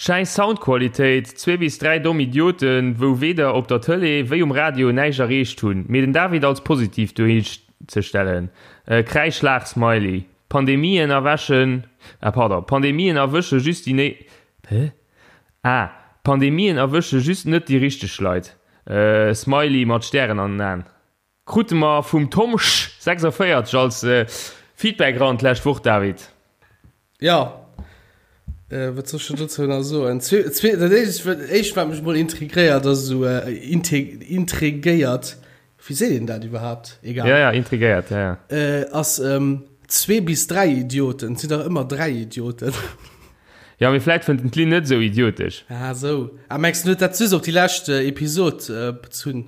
Schäiss Soundqualitéit, zwee bis 3 domm Idioten wou weder op der Tëlee wéi um Radio näischt erreecht hunn, mee den David als positiv dohinzestellen. Kräischlaach-Smiley Pandemien erwäschen, ah pardon, Pandemien erwësche just déi né, hä? Ah, Pandemien erwësche just net déi richteg Leit. Smiley mat Stären an den Aen. Krute mer vum Tomsch 46 als Feedback eran d'lescht Woch, David. Jo, wat soll ech dann dozou nach soen? Dat éischt, wat mech mol intrigréiert, ass esou, intrigéiert, wéi seet een dat iwwerhaapt? Egal. Ja, ja, intrigéiert, ja, ja. Ass zwee bis dräi Idioten. Et sinn dach ëmmer dräi Idioten. Ja, mee vläit fënnt en d'Lynn net esou idiotesch. Ah, esou. Ah, mengs du, en huet dat just op déi lescht Episod bezunn?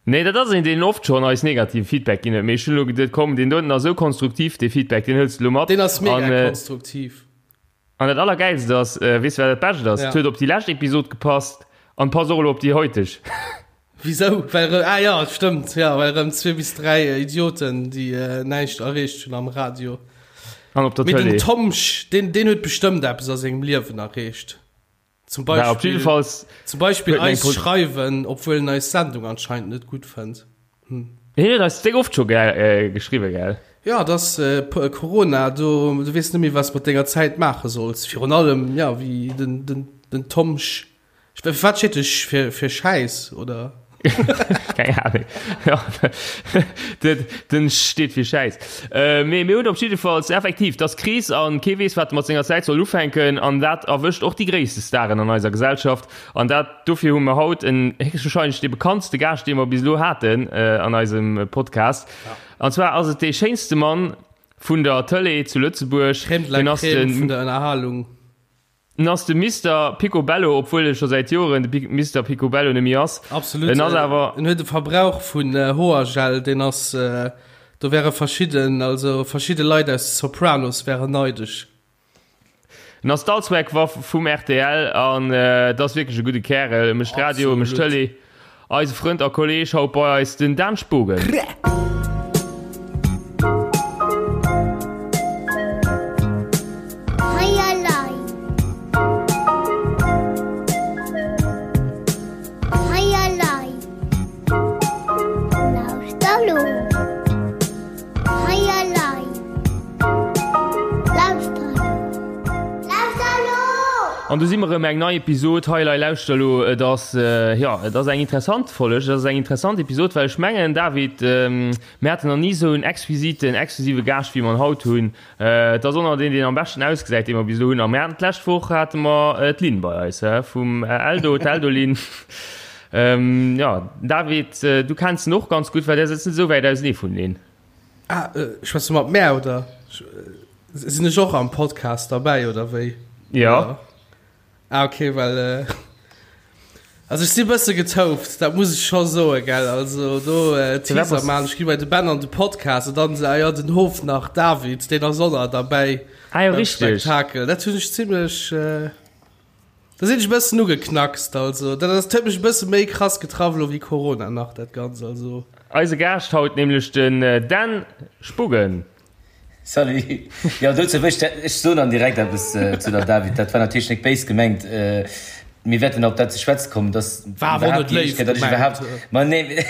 Nee, dat ass een, deen oft schonn eis negative Feedback ginn huet. Mee ech hunn elo geduet, komm, deen doten ass esou konstruktiv, dee Feedback, deen hëls de elo mat. Deen ass mega An, äh, konstruktiv. An dat Allergäilst ass, äh, weess de, wat dat Bescht ass? Ja. Et huet op déi lescht Episod gepasst an passt och elo op déi heuteg. Wisou? Well erëm, ah ja, stëmmt, ja, well erëm zwee bis dräi Idioten, déi äh, näischt erreecht hunn am Radio. An op der Mee den Tëlee. Tomsch, deen, deen huet bestëmmt eppes a sengem Liewen erreecht. Zum Beispiel, op jiddefalls zum Beispiel eis schreiwen, obwuel en eis Sendung anscheinend net gutt fënnt. Hm. Hien huet eis déck oft scho äh, geschriwwen, gell? Ja, dass äh, Corona, du, du weess net méi, was mat denger Zäit maache solls. Virun allem, ja, wéi den, den, den Tomsch. Wat steet de fir, fir Schäiss, oder? Keng Ahnung. Ja, den, den steet fir Schäiss. Äh, mee mir hunn op jiddefalls effektiv, dass Kris an kee weess, wat e mat senger Zäit soll ufänken an dat erwëscht och déi gréisste Staren an eiser Gesellschaft an dat dofir hu mer haut en héchstwahrscheinlech dee bekanntste Gaascht, dee mer bis elo haten äh, an eisem Podcast. An zwar ass et dee schéinste Mann vun der Tëlee zu Lëtzebuerg. Crème de la Crème vun der Ënnerhalung. En ass de Mister Picobello, obwuel e scho säit Joren de Mister Picobello net méi ass. Absolut. En ass awer. En huet e Verbrauch vun Hoergel, deen ass, do wäre verschidden, also verschidde Leit aus de Sopranos wären neidesch. En ass d'Allzweckwaff vum rtl an et ass wierklech e gudde Kärel. E mécht Radio, e mécht Tëlee. Eise Frënd a Kolleg haut bei eis, den Dan Spogen. An do si mer erëm, eng nei Episod Hei Lei Lauschter elo. Et ass, jo, et ass eng interessant Folleg, et ass eng interessant Episod, well ech mengen, David, mir haten nach ni esou en exquisiten, exklusive Gaascht, wéi mer en haut hunn. Et ass och nach deen, deen am beschten ausgesäit, dee mer bis elo hunn. A mir haten d'lescht Woch hate mer d'Lynn bei eis, hä, vum Eldo, d'Eldo-Lynn. Jo, David, du kenns en och ganz gutt, well där sëtzt net esou wäit ausenee vun Lynn. Ah, schwätz du mat mär oder sinn ech och am Podcast derbäi oder wéi? Ja. Ah okay, well äh, also ech si bësse getouft, dat muss ech scho soe gell. Also do äh, Teaser man, ech gi bei de Ben an de Podcast an dann se ah ja den Hof nach David, deen ass och nach derbäi. Ah jo, richteg. Spektakel. Dat hunn ech zimmlech äh, Da sinn ech e bëssen ugeknackst, also dat ass, huet mech e bësse méi krass getraff elo wéi Corona nach dat Ganzt, also. Eise Gaascht haut nämlech den Dan Spogen. Salut. Jo, dozou wëll ech, ech soen dann direkt eppes zu der David. Dat war natierlech nek béis gemengt. Mir wäerten op dat ze schwätze kommen, dass War awer och net léif gemengt. Ma nee,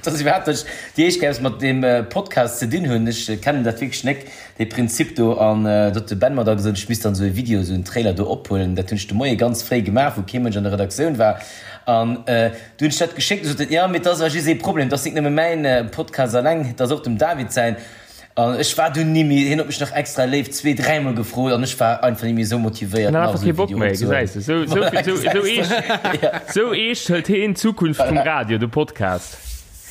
dass iwwerhaapt ech déi éischt Kéier eppes mat deem Podcast ze dinn hunn. Ech kennen dat wierklech nek. Dee Prinzip do, an do huet de Ben mer da gesot, ech misst dann esou e Video, esou en Trailer do ophuelen. Dat hunn ech de Moie ganz fréi gemaach, wou kee Mënsch an der Redaktioun war. An du hunn ech dat geschéckt, du sot en, jo, mee et ass awer just ee Problem, et ass nik nëmme mäin Podcast alleng, et ass och dem David säin. An ech war dunn ni méi, hien huet mech nach extra léif zwee, dräimol gefrot an ech war einfach ni méi esou motivéiert, nach esou e Video opzehuelen. Esou eescht, esou eescht hëlt heen d'Zukunft vum Radio, de Podcast.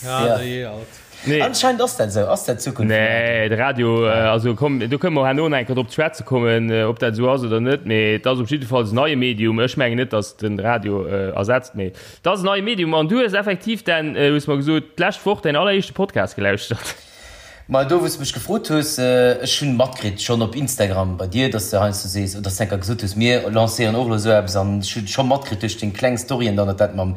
Ja, dajee alt. Nee. Anscheinend ass dat esou. Ass dat d'Zukunft vum Radio? Nee, de Radio, also komm, do kënne mer herno nach eng Kéier drop ze schwätze kommen, ob dat esou ass oder net. Mee et ass op jiddefalls en neie Medium. Ech mengen net, datt den Radio ersetzt, mee et ass en neie Medium. An du hues effektiv, Dan, hues mer gesot, d'lescht Woch däin alleréischte Podcast gelauschtert. Ma do, wou s de mech gefrot hues, ech hunn matkritt schonn op Instagram bei dir, datt s de heiansdo sees, oder datt s de eng Kéier gesot hues, mir lancéieren och elo esou eppes. An ech hunn scho matkritt duerch deng kleng Storyen dann, datt dat mam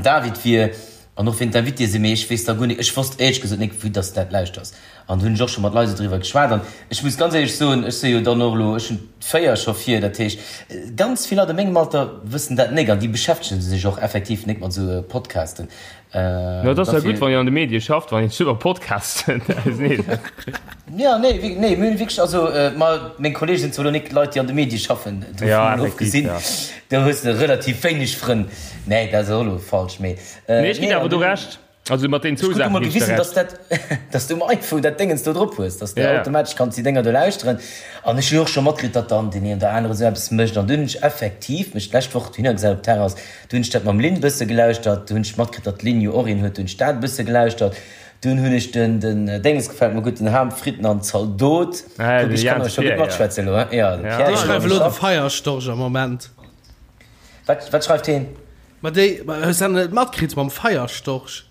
David wier. An och wien d'Invitéë sinn, mee ech weess da guer nik, ech wosst éierlech gesot nik, vue dass de dat lauschters. An do hunn ech och scho mat Leit esou driwwer geschwat. An ech muss ganz éierlech soen, ech si jo dann och elo, ech hunn d'4 scho vir, dat heescht, ganz vill Leit a mengem Alter wëssen dat nek an déi beschäftegen sech och effektiv nek mat esou Podcasten. No, et ass ja gutt, wann een an de Medie schafft, wann een sech iwwer Podcasten auseneesetzt. Ja, nee, nee, mir hunn wierklech, also ma meng Kolleege sinn zwar elo nik Leit, déi an de Medie schaffen, dovun Ja, mol effektiv, ofgesinn, ja. do hues de relativ wéineg Frënn. Nee, dat ass och elo falsch, mee Nee, ech ginn nee, awer an do dunn. Recht. Also mat deenen Ech zwou krut du Saachen mol ginn ech der gewisen, Recht. dass dat, dass du um iPhone dat Déngens do drop hues, dass de Ja, ja. automatesch kanns déi Dénger do lauschteren. An ech hunn och scho matkritt, datt dann deen een oder anere sou eppes mécht. An dunn hunn ech effektiv mech d'lescht Woch dohinner gesat op d'Terrass, du hunn ech dat mam Lynn bësse gelauschtert, du hunn ech matkritt, datt d'Lynn jo och een huet, du hunn ech dat e bësse gelauschtert. Dunn hunn ech den, den Déngens gefält mer gutt, den Ham, Fritten an Zaldot. Ah, Kuck, de ech kann Jans awer scho gutt Pierre, ja. matschwätzen elo, he? Ja, de Ja. Pierre, Déi jo, schreiwe elo de schafft. Feierstorch am Moment. Wat, wat schreift heen? Ma déi, ma hues du net matkritt mam Feierstorch?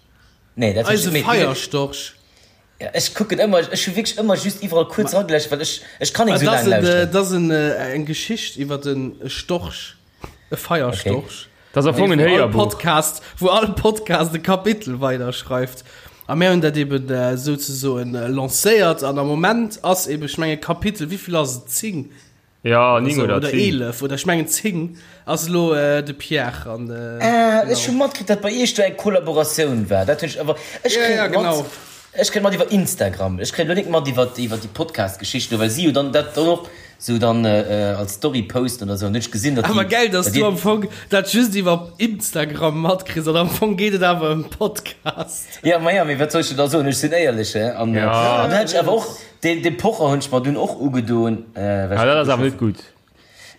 Nee, dat hunn ech Eise net méi. Feierstorch. Ja, ech kucken ëmmer, ech hu wierklech ëmmer just iwwerall kuerz erageläscht, well ech, ech kann Ma nik esou dat laang ass en, lauschteren. dat ass en, eng Geschicht iwwer en Storch, e Feierstorch. Okay. Dat ass am Fong en Wou all Héierbuch. Podcast, wou all Podcast e Kapitel weiderschreift. A mir hunn dat eben souzesoen lancéiert an am Moment ass eben, ech mengen, Kapitel, wéivill ass et, 10? Ja, 9 oder oder 10. 11 oder ech mengen 10 ass elo de Pierre an Ah, ech hu matkritt, datt bei iech do eng Kollaboratioun war. Dat hunn ech awer, ech Ja, kréien ja, et mat, genau. ech kréien et mat iwwer Instagram. Ech kréien elo nik mat iwwer, iwwer déi Podcast-Geschicht do, well si jo dann dat dann och sou dann als Story posten oder sou. An hunn ech gesinn, datt Awer déi, gäil, datt datt du dir. am Fong dat just iwwer Instagram matkriss an am Fong geet et awer ëm Podcast. Ja, ma ja, mee wat soll ech der da soen? Ech sinn éierlech, he. An, Ja. an dann hat ech awer och. Deen dee Pocher hunn ech mer dunn och ugedoen, well Ah, ech dat ass awer net gutt.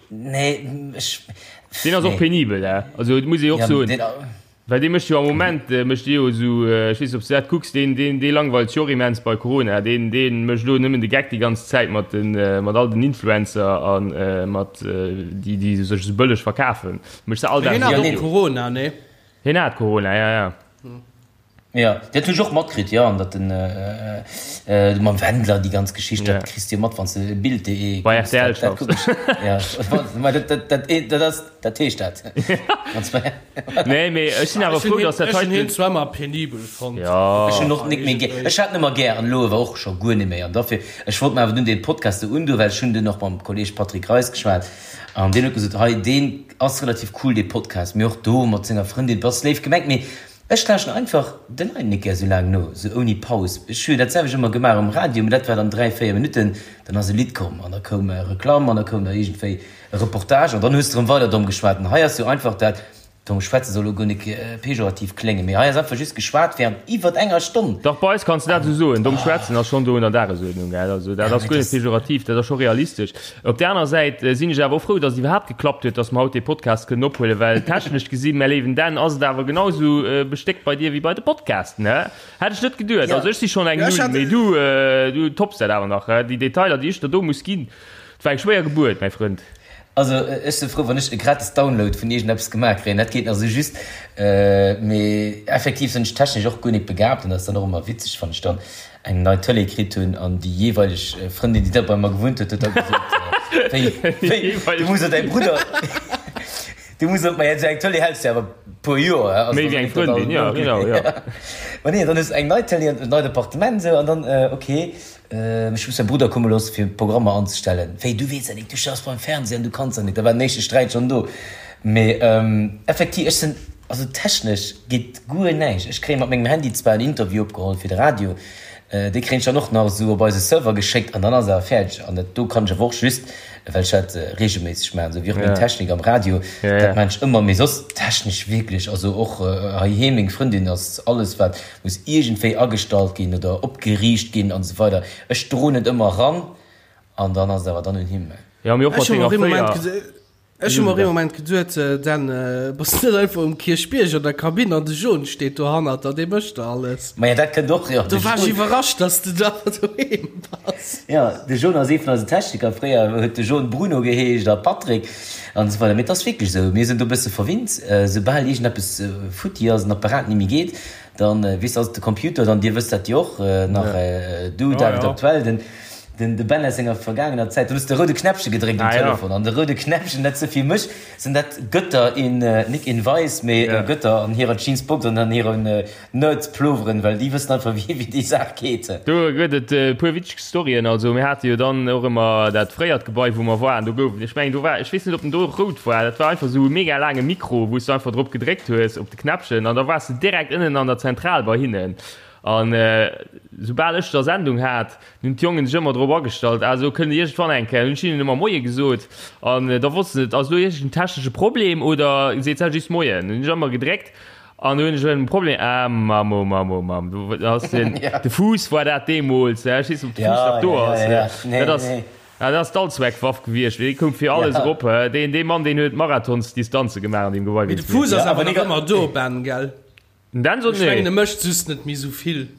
Nee, ech. Deen ass och Nee. penibel, hè. Also, et muss ee och Ja, soen, deen. well dee mécht jo am Moment, mécht dee jo esou, ech weess net, ob s de dat kucks, deen, deen, dee langweilt sech och immens bei Corona. Deen, deen mécht elo nëmmen de Geck déi ganz Zäit mat den, mat all den Influencer a mat déi, déi sech esou bëlleg verkafen. Mécht se all Mee Dag hien esou hat Ja, och nee. Videoen. Corona, nee? Hien hat Corona, ja, ja. Jo, dat hunn ech och matkritt, jo, an datt den mam Wendler déi ganz Geschicht, dat kriss de jo mat, wann s de Bild.de Bei kucks, rtl dat dat schaffs. kuck ech, jo, mä dat dat dat dat ass, dat heescht dat. Wann s de. Nee, mee ech sinn awer Ech hunn frou, hien, datt dat ech hunn hien heiten. zwar ëmmer penibel fonnt. Jo. Ech hunn och nik méi gär, ech hat en ëmmer gär an elo awer och scho guer net méi an dofir, ech wollt mer awer dunn dee Podcast do undoen, well ech hunn dunn och mam Kolleeg Patrick Reis geschwat an deen huet gesot, hei deen ass relativ cool dee Podcast, mee och do mat senger Frëndin, et ass léif gemengt, mee Ech lauschten einfach de Leit net gär sou laang no, sou ouni Paus. Ech hu jo dat selwecht ëmmer gemaach um Radio, mee dat war dann 3, 4 Minutten, dann ass e Lidd komm an da koum Reklamm an da koum da iergendwéi e Reportage an dann hues de erëm weider domm geschwat. An hei ass jo einfach dat domm Schwätze soll elo guer nik pejorativ kléngen, mee hei ass einfach just geschwat wärend iwwert enger Stonn. Dach, bei eis kanns de dat esou soen, domm schwätzen ass schonn do un der Dagesuerdnung, gell. Also dat ass guer net pejorativ, dat ass scho realistesch. Op där aner Säit sinn ech awer och frou, dass et iwwerhaapt geklappt huet, dass mer haut dee Podcast kënnen ophuelen, well technesch gesinn, mäi léiwen Dan, ass et awer genau esou bestéckt bei dir wéi bei de Podcasten, hä? Hätt ech net geduet. Also ech si schonn eng Null, mee du, du topps dat awer nach, hä? Déi Detailer, déi ech der do muss ginn, et war eng schwéier Gebuert, mäi Frënd. Also ech si frou, wann ech e gratis Download vun iergendeppes gemaach kréien, dat geet nach esou just, mee effektiv sinn ech technesch och guer nik begabt an dat ass dann och ëmmer witzeg, wann ech dann eng nei Tëlee kritt hunn an déi jeeweileg Frëndin, déi da bei mer gewunnt huet, huet da gesot, Wéi, wéi, du muss och däi Brudder, du muss och, ma esou eng Tëlee häls de awer e puer Joer, hä? Méi wéi eng Frëndin, jo, genau, jo. Ma nee, dann hues de eng nei Tëlee an en neit Appartement esou an dann, ok, ech muss mäi Brudder komme loosse fir Programmer anzestellen. Wéi, du weess dat nik, du schaffs beim Fernseh an du kanns dat nik. Da war den éischte Sträit schonn do. Mee effektiv, ech sinn, also technesch geet guer näischt. Ech kréie mat mengem Handy zwar en Interview opgeholl fir de Radio, dee kréien ech dann och nach esou op eise Server geschéckt an dann ass awer fäerdeg. An dat do kann ech awer och just, well ech dat reegelméisseg maachen, esou wéi och meng Technik am Radio, dat maachen ech ëmmer. Mee soss technesch wierklech, also och heiheem, meng Frëndin ass alles wat muss iergendwéi agestallt ginn oder opgeriicht ginn an esou weider, ech droen et ëmmer eran an dann ass et awer dann un him. Jo, mee och mat Ech hu mer denger och ee Moment fréier. Ech hu mer och ee Moment geduet, Dan, bass du net einfach um Kierchbierg an der Kabinn an de John steet dohannert der, dee mécht der alles. Maja, dat kënnt och, jo. Do war ech iwwerrascht, dass du da doheem bass. Jo, de John ass ee vun eisen Techniker. Fréier huet de John Bruno geheescht a Patrick an esou weider. Mee et ass wierklech esou, mir sinn do e bësse verwinnt. Soubal iergendeppes futti ass, en Apparat ni méi geet, dann, weess de, ass et de Computer, dann, dir wësst dat jo och nach, du David, aktuell, den. Den de Ben aus senger vergaangener Zäit, do hues de roude Knäppche gedréckt um Telefon an de roude Knäppchen, dat se fir mech sinn dat Götter in, nik in weiß, mee Götter an hirer Jeansbox an an hiren Nerdploveren, well déi wëssen einfach wéi wéi déi Saach geet. Do gëtt et e puer witzeg Storyen. Also mir hate jo dann och ëmmer dat fréiert Gebai wou mer waren, do gouf et, ech mengen do war, ech weess net ob en do och rout war, dat war einfach esou e mega laange Mikro wou s du einfach drop gedréckt hues op de Knäppchen an da waars de direkt ënnen an der Zentral bei hinnen. An soubal ech da Sendung hat, hunn d'Jongen sech ëmmer drop agestallt, ah esou kënnt iergendwann eng Kéier, hunn ech hinnen ëmmer Moie gesot an da wossten se, ass elo iergend en technesche Problem oder seet se just Moien. Hunn ech ëmmer gedréckt an du hunn ech en Problem, ah Mamm, oh Mamm, oh Mamm, du ass den, de Fuuss war dat deemools, ech weess net, ob de Fuuss nach do ass, dat ass, dat ass d'Allzweckwaff gewiescht, dee koum fir alles erop, deen, dee Mann, deen huet Marathonsdistanze gemaach an deem Gebai. Mee de Fuuss ass awer nach ëmmer do, Ben, gell? Den Dan sot Ech mengen e mécht just net méi sou vill.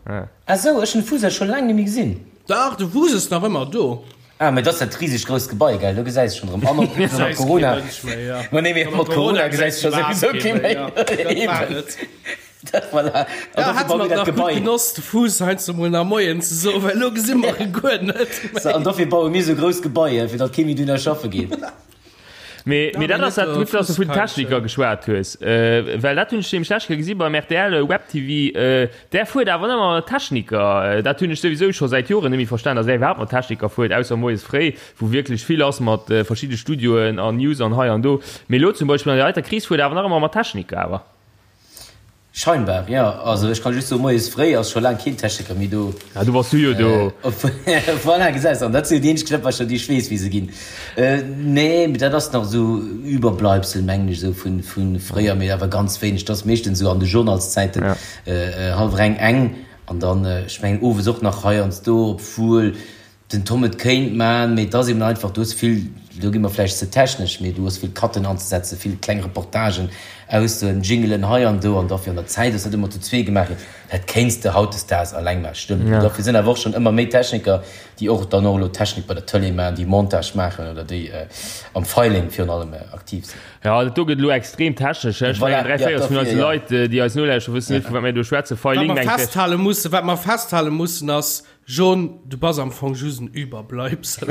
Ah sou, ech hunn de Fuser scho laang nemmi gesinn. Dach, de Fuser ass nach ëmmer do. Ah, mee dat ass dat risegt grousst Gebai, gell? Do gesäis de schonn erëm. An och mat Gesäis kee Corona. Mënsch méi, ja. Ma nee, mee Mat mat Corona Corona gesäis gesäis de scho iwwerhaapt souwisou kee kee méi, méi. ja. Dat war Eben. et. Dat, voilà. An Ja, dofir hätte baue mer mir dat nach gutt Gebai. genoss, de Fuuss heiansdo mol nach Moien ze soen, well elo gesi mer e guer net So, an méi. dofir baue mir sou grouss Gebaier, fir datt kee méi dohinner schaffe geet. Mee, Ja, mee mee dat ass net dat, de gutt, dass du vun Fusskeilchen. Techniker geschwat hues, äh, well dat hunn ech nämlech d'lescht Kéier gesi beim rtl Web TV, äh, där fuert awer ëmmer mat Techniker. Dat hunn ech souwisou scho säit Joren net méi verstan, dass där iwwerhaapt mat Techniker fuert, ausser moies fréi, wou wierklech vill ass mat äh, verschidde Studioen an News an hei an do. Mee elo zum Beispill an der heiter Kris fuert awer nach ëmmer mat Techniker awer. Scheinbar, jo. Also ech kann just soen, moies fréi ass scho laang keen Techniker méi do. Ah, du bass du jo do. Voilà, gesäis de, an dat sinn jo déi eenzeg Knëppercher, déi ech weess, wéi se ginn. Nee, mee dat ass nach esou Überbleibsel, mengen ech, esou vu fréier, mee awer ganz wéineg. Dat ass meeschtens esou an de Journalszäiten, hallwer eng, eng, an dann, ech mengen, owes och nach heiansdo, obwuel Den Tom, Et kéint man, mee et ass eben einfach, du hues vill, do gi mer vläicht ze technesch, mee du hues vill Cutten anzesetzen, vill kleng Reportagen, Aussoen, Jingelen hei an do an dofir an der Zäit ass dat ëmmer zu zwee gemaach ginn. Dat kéints de hautdesdaags alleng maachen, stëmmt. Mee dofir sinn awer och schonn ëmmer méi Techniker, déi och dann och elo Technik bei der Tëlee maachen, déi Montage maachen oder déi am Filing virun allem aktiv sinn. Jo, dat do gëtt elo extrem technesch. Ech mengen, 3 Véierels vun eise Leit, déi eis nolauschteren, wëssen net, vu wat mir do schwätzen. Filing mengt. Wat mer festhale mussen, wat mer festhale mussen ass, John, du bass am Fong just en Überbleibsel.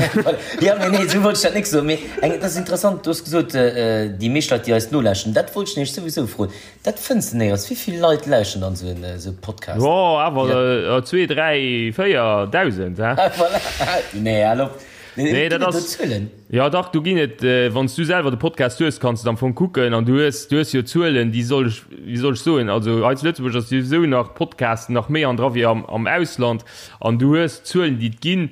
Jo, mee nee, esou wollt ech dat nik soen. Mee eng, dat ass interessant, du hues gesot, déi meescht Leit, déi eis nolauschteren, dat wollt ech nämlech souwisou froen, dat fënns de néierens. Wéi vill Leit lauschteren dann esou en, esou e Podcast? Jo, awer zwee, dräi, 4.000, hä? Voilà, nee, hal op. Nee, dat Ginn et do ass. Zuelen? Jo dach, do ginn et, wann s du selwer de Podcast hues, kanns de et am Fong kucken an du hues, du hues jo Zuelen, déi soll ech, wéi soll ech soen, also hei zu Lëtzebuerg ass souwisou nach Podcasten nach méi an dra wéi am, am Ausland an du hues Zuelen, déi et ginn,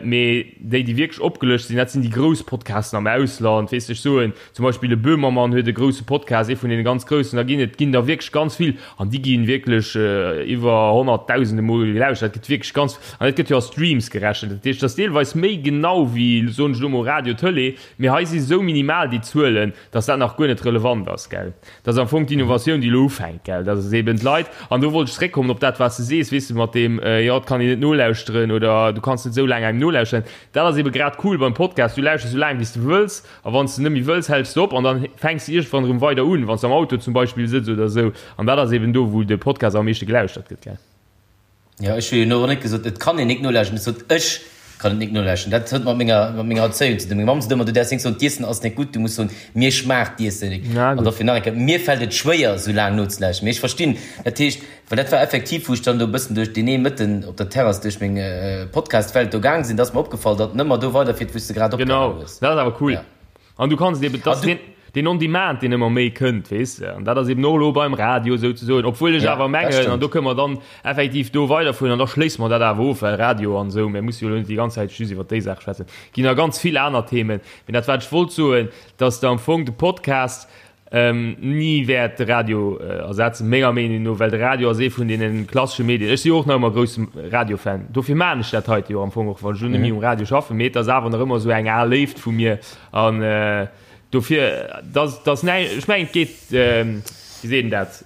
mee déi, déi wierklech opgelëscht sinn, dat sinn déi grouss Podcasten am Ausland, weess de, ech soen zum Beispill e Böhmermann huet e grousse Podcast, ee vun deene ganz groussen, da ginn et ginn der wierklech ganz vill an déi gi wierklech iwwer honnertdausende Mol gelauschtert, dat gëtt wierklech ganz. An et gëtt jo a Streams gerechent, dat heescht, et ass deelweis méi genau wéi, soen ech elo mol, Radio, Tëlee, mee hei si sou minimal déi Zuelen, dass dat nach guer net relevant ass, gell. Dat ass am Fong d'Innovatioun, déi elo ufänkt, gell, dass es eben d'Leit, an do wollt ech zréckkommen op dat, wat s de sees, weess de, mat deem, jo, et kann een net nolauschteren oder du kanns net esou laang engem nolauschteren, dat ass ebe grad cool beim Podcast, du lauschters esou laang, wéi s de wëlls a wann s de net méi wëlls, häls de op an dann fänks de iergendwann erëm weider un, wann s de am Auto zum Beispill sëtz oder esou. An dat ass eben do, wou de Podcast am meeschte gelauschtert gëtt, gell. Jo, ech hu jo elo och net gesot, et kann een nik nolauschten. Ech sot, ech kann et nik nolauschten. Dat huet mat menger, mat menger Erzéiung ze dinn. Meng Mamm sot ëmmer, du däerfs nik soen, d'Iessen ass nik gutt, du muss soen, mir schmaacht d'Iessen nik. Na An gutt. dofir nach eng Kéier, mir fält et schwéier, esou laang nozelauschten. Mee ech verstinn, dat heescht, well dat war effektiv, wou ech dann do e bëssen duerch deen ee Mëtten op der Terrass duerch meng Podcast-Welt do gaang sinn, da ass mer opgefall, datt en ëmmer do weiderfiert, wou s de grad opgehalen Genau, hues. dat ass awer cool. Ja. An du kanns eben, dass den, den On-Demand, deen ëmmer méi kënnt, weess de, an dat ass eben och elo beim Radio souzesoen, obwuel ech Ja, awer dat mengen, an do stëmmt. kënne mer dann effektiv do weiderfueren an da schléisse mer dat awer of, well Radio an esou, mir musse jo elo net déi ganz Zäit just iwwert déi Saach schwätzen, ginn nach ganz vill aner Themen. Mee dat, wat ech wollt soen, dass de am Fong de Podcast ni wäert de Radio ersetzen, menger Meenung no, well de Radio ass ee vun deene klassesche Medien. Ech si jo och nach ëmmer grousse Radiofan, dofir maachen ech dat heite jo am Fong och, wann ech elo net méi um Radio schaffen, mee et ass awer nach ëmmer esou eng al Léift vu mir an dofir, dass, dass näi, ech mengen et geet, wéi seet een dat,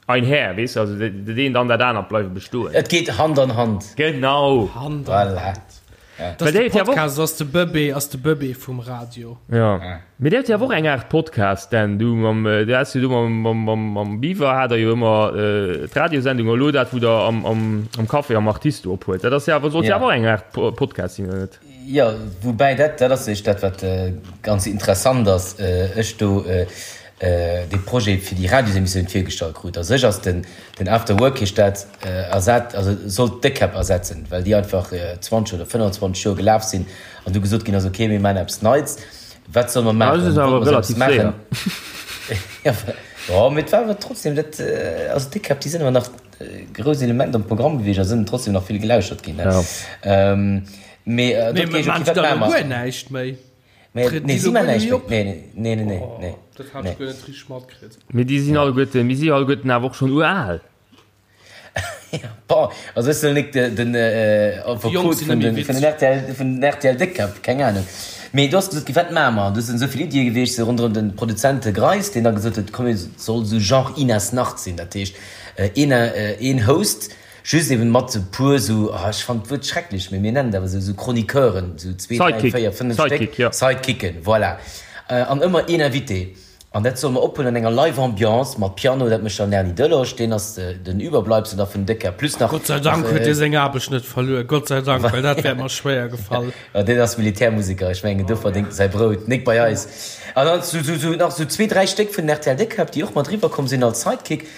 einher, weess de, also dat eent an dat anert bleiwe bestoen. Et geet Hand an Hand. Genau. Hand an Voilà. Hand. Well de Podcast ass de Bëbee, ass de Bëbee vum Radio. Ja. Mee dir hutt jo awer och eng Aart Podcast, denn du mam, du has jo do mam, mam, mam, mam Beaver hat der jo ëmmer d'Radiosendung, elo dat wou der am, am, am Café am Artist do ophuelt. Dat ass jo awer, sollt jo awer och eng Aart Podcast sinn, oder net? Jo, woubäi dat, dat ass eréischt dat wat ganz interessant ass, ech do dee Projet fir déi Radiosemissioun virgestallt krut. A sech ass den, den After Work heescht dat, ersat, also sollt d'Déckkäpp ersetzen, well déi einfach 20 oder 25 Joer gelaf sinn an du gesot ginn ass, okay, mir maachen eppes Neits, wat solle mer maachen? Dat ass awer relativ séier. Jo, mee et war awer trotzdem dat, also d'Déckkäpp, déi sinn awer nach e grousst Element am Programm gewiescht a sinn trotzdem nach vill gelauschtert ginn. Mee dort geet, okay, wat maache mer? Guer näischt méi. Nee, si man näischt méi. Nee, nee, nee, nee, nee. Dat hat ech guer net richteg matkritt. Mee déi sinn alleguerten, mir si alleguerten awer och schonn ural. Bon, also ech soll nik den Affekot vun den rtl, vun den rtl Déckkäpp, keng Ahnung. Mee do ass gesot ginn, wat maache mer? An do sinn esou vill Iddie gewiescht, sou ronderëm de Produzent Greis, deen da gesot huet, komm, et soll esou Genre Inas Nacht sinn. Dat heescht, een, een Host, Just eben mat e puer sou, ah ech fannen d'Wuert schrecklech, mee mir nennen et awer sou, sou Chroniqueuren, sou zwee, dräi, véier, fënnef Stéck, Sidekicken, voilà. An ëmmer een Invité. An dat solle mer ophuelen an enger live Ambiance mat Piano, dat mécht dann den Erny Delosch, deen ass den Überbleibsel da vun Décker, plus nach. Gott sei Dank huet dee seng Aarbecht net verluer, Gott sei Dank, well dat wär mer schwéier gefall. Jo, deen ass Militärmuseker, ech mengen, do verdéngt e säi Brout, nik bei eis. An dann sou, sou nach sou zwee, dräi Stéck vun den rtl Déckkäpp, déi och mat eriwwer komm sinn als Sidekick.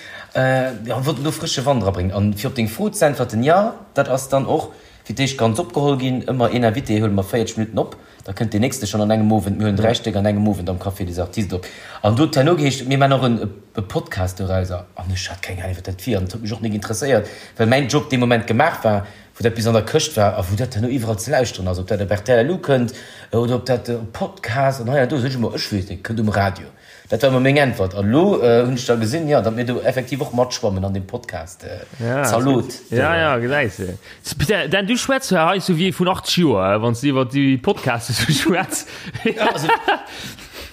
Jo, wollten do frësche Wand erabréngen. An fir op deng Fro ze äntwerten, jo, dat ass dann och fir d'éischt ganz opgeholl ginn. Ëmmer een Invité huele mer 40 Minutten op, da kënnt deen nächste schonn an engem Owend. Mir huelen 3 Stéck an engem Owend am Café des Artistes op. An do huet herno geheescht, mir maachen och en e Podcast dorauser. An ech hat keng Ahnung, wat dat wier. An et huet mech och nik interesséiert, well mäin Job dee Moment gemaach war, wou dat bis an der Këscht war a wou dat herno iwwerall ze lauschteren ass, ob dat op rtl elo kënnt oder ob dat op Podcast an hei an do. Sot ech ëmmer, ech weess net, kënnt um Radio. Dat war ëmmer meng Äntwert. An elo hunn ech da gesinn, jo, datt mir do effektiv och matschwammen an deem Podcast. Zalot. Ja, ja, gesäis de. Dan, du schwätz jo hei sou wéi ee vun 80 Joer, wann s de iwwer déi Podcaste sou schwätz.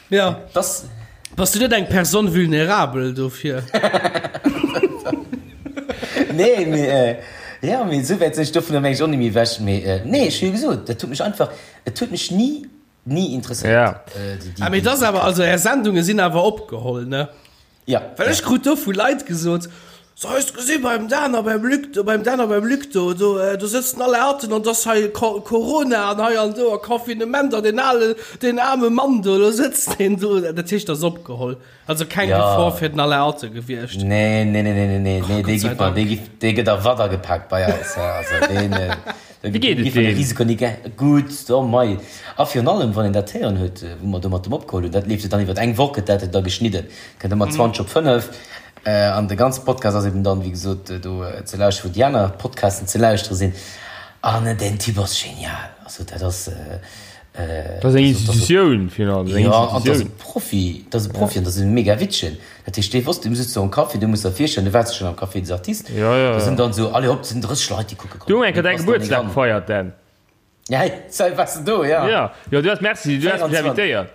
Ja. Das. Bass du net eng Personne vulnérable dofir? Nee, mee, jo, mee esou wäit sinn ech dovunner meng ech och net méi ewech. Mee nee, ech hu jo gesot, dat huet mech einfach, et huet mech ni Ni interesséiert. Ja. Ah, mee das awer, also är Sendunge sinn awer opgeholl, ne? Ja. Well ech krut do vu Leit gesot, So, hues de gesi beim Dan a beim Luc do, beim Dan a beim Luc do, do, do sëtzen alle Atten an dass hei Corona an hei an do a Confinement an deen ale, deen aarme Mann do, do sëtzt deen do. Dat heescht, dat ass opgeholl. Also keng ja. Gefor fir den Alain Atten gewiescht. Nee, nee, nee, nee, nee, nee, dee gëtt dee gëtt, dee gëtt a Watt agepaakt bei eis. Ja, also deen, äh, Wéi geet et deem? Risiko ni gutt, oh mei. A virun allem, wann een dat héieren huet, wou mer do mat dem opgeholl hunn, dat leeft jo dann iwwer eng Woch, gëtt dat da geschnidden, kënnt ëmmer 20 op 5. An de ganze Podcast ass eben dann, wéi gesot, do ze lauschteren, wou déi aner Podcasten ze lauschtere sinn. An deen Typ ass genial. Also dat ass. Dat ass eng Institutioun, finalement. Jo, an dat ass e Profi, dat ass e Profi an dat ass e mega Wittchen. Dat heescht, dee wosst, du sëtz do am Café, du muss der virstellen, du waars schonn am Café des Artistes, Jo, jo, do sinn dann esou, allez hopp, sinn 30 Leit, déi kucke kommen. Du hu eng Kéier däi Gebuertsdag gefeiert, Dan. Ja, sei, waars de do, ja. Jo, jo, du has, merci, du has mech invitéiert.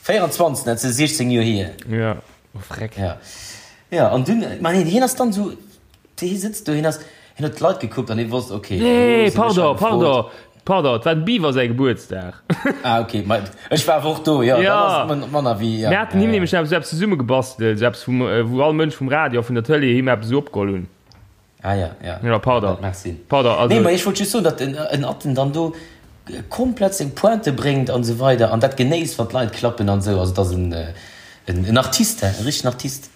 24, dat ass 16 Joer hier. Jo, oh freck. Ja, jo, an dunn, ma nee, hien ass dann esou, Hie sëtzt do, hien ass, hien huet d'Leit gekuckt an hie wosst, okay, elo Nee, sinn ech hei pardon, gefrot. pardon, pardon, et war dem Beaver säi Gebuertsdag. Ah, okay, ma ech war awer och do, jo, dann Ja. ass et man- manner wéi, ja, Mir haten ja, him ja. nämlech eppes eppes zesummegebastelt, esou eppes vum, wou all Mënsch vum Radio a vun der Tëlee him eppes esou opgeholl hunn. Ah, ja, ja. Ja, pardon. Dat mag sinn. Pardon, also. Nee, ma ech wollt just soen, datt en, en Atten dann do komplett seng Pointe bréngt an esou weider an dat genéisst, wann d'Leit klappen an esou. Also, et ass en, en, en Artiste, hein, e richtegen Artiste.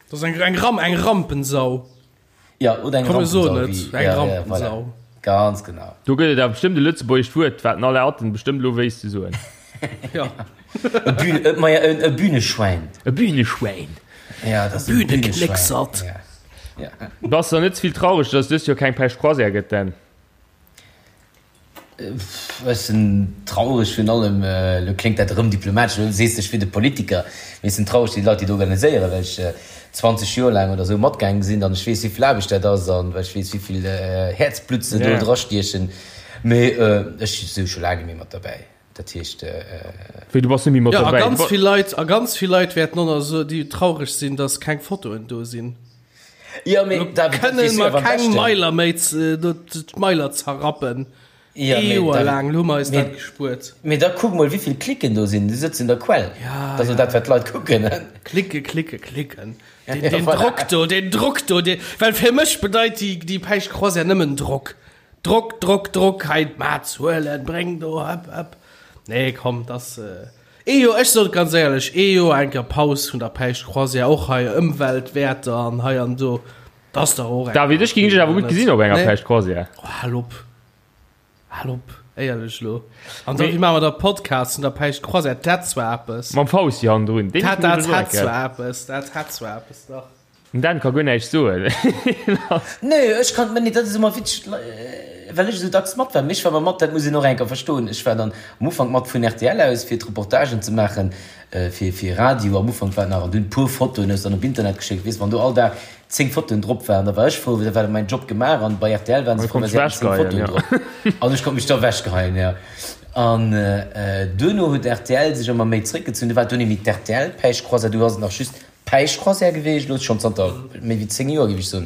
Dat ass eng, eng, Ram, eng Rampensau. Ja, oder eng Komm, mir soen Rampensau, et, wéi, eng ja, ja, Rampensau. voilà. Ganz genau. Do gëtt et awer bestëmmt e lëtzebuergescht Wuert, wat den Alain Atten bestëmmt elo wéisst ze soen. Ja. E Bühn, e, ma ja, e, e Bühneschwäin. E Bühneschwäin. Ja, dat ass e Bühneschwäin. Bühneknécksert. Ja. Ja. Bass der net ze vill traureg, dass et dëst Joer keng Pêche Croisière gëtt, Dan? Ech sinn traureg virun allem, elo kléngt dat erëm diplomatesch, elo sees de ech wier de Politiker, mee ech sinn traureg fir déi Leit, déi et organiséieren, well ech 20 Joer laang oder esou matgaange sinn an ech weess, wéi vill Aarbecht dat ass an well ech weess, wéi vill Häerzblutt se do drastiechen. Mee ech si scho laang net méi mat derbäi, dat heescht. Wéi, du bass net méi mat Jo, a derbäi? ganz vill Leit, a ganz vill Leit wäerten och nach esou, déi traureg sinn, dass keng Fotoen do sinn. Jo, mee Elo David, dat kënne weess du mer awer am keng beschten. Mailer méi, d'Mailer zerrappen. Ee Joer laang hu mer eis dat gespuert. Mee da kuck mol, wéi vill Klicken do sinn. Du sëtz un der Quell. Dat ass jo dat, wat d'Leit kucken. Klicke, klicke, klicken. Deen Drock do, deen Drock do, dee, well fir mech bedeit déi, déi Päischt Croisière nëmmen Drock. Drock, Drock, Drock, hei d'Maat huelen, bréng do, hëpp, hëpp. Nee, komm, dass, ee Joer, ech soen et ganz éierlech, ee Joer eng Kéier Paus vun der Päischt Croisière, och hei Ëmweltwäerter an hei an do, dass dach och eng David, ech géing dech awer gutt gesinn op enger Päischt Croisière. Oh, hal op. Hal op, éierlech elo. An da, wéi maache mer da Podcast vun der Päischt Croisière? Dat hätt zwar eppes. Mam Fausti hannendrun. Deen Dat, dat hätt zwar eppes, dat hätt zwar eppes, dach. Den Dan ka guer näischt soen. Nee, ech kann, nee, dat ass ëmmer witzeg, well ech esou dacks mat war. Mee ech war ëmmer mat, dat muss een och eng Kéier verstoen, ech war dann am Ufank mat vun rtl aus, fir d'Reportagen ze maachen, fir, fir Radio. Am Ufank war et nach, an dunn e puer Fotoen hues dann op Internet geschéckt, weess, wann do all Dag 10 Fotoen drop waren, da war ech frou, da war mäin Job gemaach an bei rtl waren se frou, well se haten 10 Fotoen drop. An ech konnt mech da ewechgeheien, jo. An duerno huet rtl sech ëmmer méi zréckgezunn, du war et dunn méi d'RTL-Päischtcroisière, du ass et nach just d'Päischtcroisière geweecht, elo schonn zanter méi wéi 10 Joer, géif ech soen.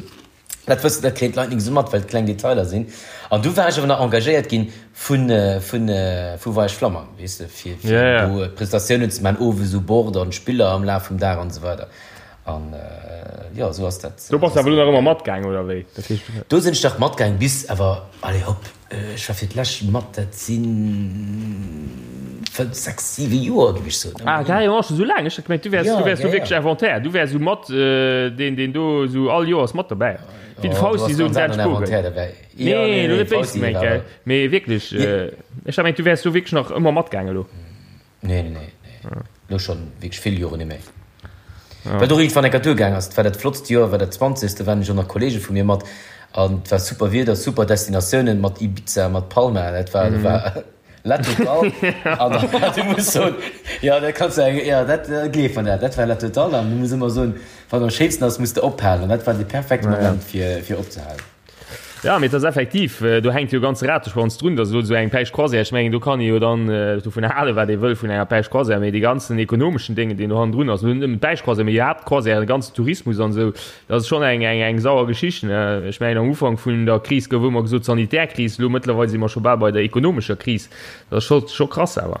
Dat wëssen, dat kréien d'Leit nik esou mat, well et kleng Detailer sinn. An du war ech awer nach engagéiert ginn vun, vun, vu Voyage Flammang, weess de, fir, fir do Prestatiounen ze maachen, owes u Bord an Spiller am Laf vum Dag an esou weider. An jo, esou ass dat. Do bass de awer elo nach ëmmer matgaang, oder wéi? Dat heescht. Do sinn ech dach matgaang bis awer, allez hopp, ech war fir d'lescht mat, dat si 5, 6, 7 Joer, géif ech soen. Ah, carrément scho sou laang? Ech hat gemengt, du wäers, du wäers do wierklech Inventaire, du wäers esou mat deen, deen do esou all Joers mat dobäi, wéi de Fausti esou den Dan Spogen. Nee, elo net béis gemengt, gell, mee wierklech, ech hat gemengt, du wäers do wierklech nach ëmmer matgaang elo. Nee, nee, nee, nee. Lo schon wierklech vill Joren net méi. Wat och iergendwann enker duergaang ass, et war dat flottst Joer, war dat zwanzegste, waren ech och nach Kollege vu mir mat an et war super Wieder, super Destinatiounen mat Ibiza, mat Palma, dat war, dat war la totale. An da, du muss soen, jo, dat kanns du eng, jo, dat gleef mer dat, dat war la totale an du muss ëmmer soen, wann am schéinsten ass, muss de ophalen an dat war de perfekte Moment fir, fir opzehalen. Jo, mee et ass effektiv, do hänkt jo e ganze Rateschwanz drun, datt elo esou eng Päischt Croisière, ech mengen, do kann ee jo dann dovun halen, wat ee wëll vun enger Päischt Croisière, mee dee ganzen ekonomeschen Déngen, deen do hannendrun ass, elo net nëmmen d'Päischt Croisière, mee iwwerhaapt d'Croisièren, de ganzen Tourismus an esou, dat ass schonn eng, eng, eng sauer Geschicht, ne. Ech mengen, am Ufank vun der Kris gouf ëmmer gesot Sanitärkris, elo mëttlerweil si mer scho bal bei der ekonomescher Kris. Dat ass scho, scho krass awer.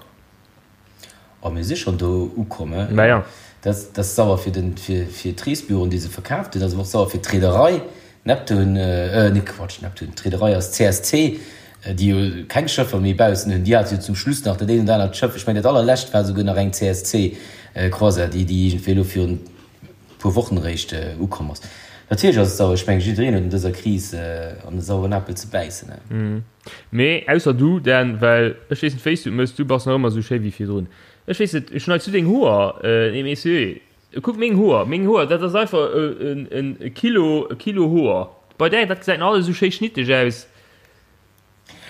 Oh, mir si schonn do ukomm, he? Mä jo. Dat ass sauer fir den, fir, fir d'Reesbüroen, déi se verkaaft hunn. Dat ass awer och sauer fir d'Reederei Neptun, äh, nee, Quatsch, Neptun, d'Reederei ass CSC, déi jo keng Schëffer méi baussen hunn. Déi hate jo zum Schluss nach dat eent oder anert Schëff. Ech mengen, dat allerlescht war souguer nach eng CSC-Croisière, déi, déi iergendwéi elo virun e puer Wochen eréischt ukomm ass. Natierlech ass et sauer. Ech mengen, jiddereen huet an dëser Kris an de saueren Apel ze bäissen, he? Mee ausser du, Dan, well ech weess net wéis du et mëss, du bass nach ëmmer esou schéi wéi virdrun. Ech weess net, schneits du deng Hoer? Nee mee sérieux, kuck meng Hoer, meng Hoer, dat ass einfach en Kilo, e Kilo Hoer. Bei där, dat gesäit nach alles esou schéi schnitteg aus.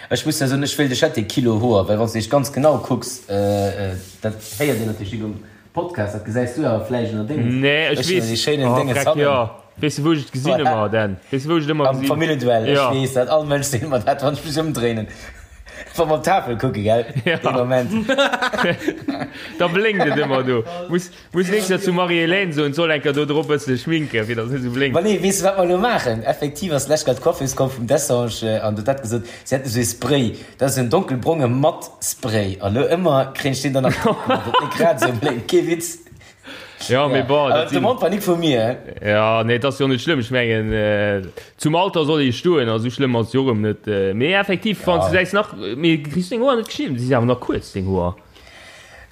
Ech muss der soen, ech wéilt ech hätt dee Kilo Hoer, well wann s de dech ganz genau kucks, dat héiert een natierlech nik um Podcast, dat gesäis du awer vläicht ënner dengem, Nee, ech weess, déi schéinen oh, Dénges hannen. Jo, weess de wou ech et gesinn ëmmer, Dan? Weess de wou ech et ëmmer gesinn? Am Familljeduell, ech weess dat, all Mënsch seet mer dat, wann ech mech ëmdréinen, wa mer op d'Tafel kucke, gell, dee Moment. Da blénkt et ëmmer do. Muss, muss nächst Joer zum Marie-Hélène soen, d'soll eng Kéier do drop bësse schminken, fir datt et net esou blénkt. Ma nee, weess de wat mer elo maachen? Effektiv ass d'lescht Kéier d'Coiffeuse komm vum Dessange an huet dat gesot, si hätt esou ee Spray. Dat ass en donkelbronge mat Spray. A lo ëmmer kréien ech deen dann nach drop gemaach, datt net grad esou blénkt. Kee Witz. Ja, mee bon, dat sinn. D'Demande war nik vu mir, he. Ja, nee, et ass jo net schlëmm. Ech mengen, zum Alter soll ee stoen, a sou schlëmm ass et jo och erëm net. Mee effektiv, wann s du säis nach, mee kriss du deng Hoer net geschnidden? Si si awer nach kuerz, deng Hoer.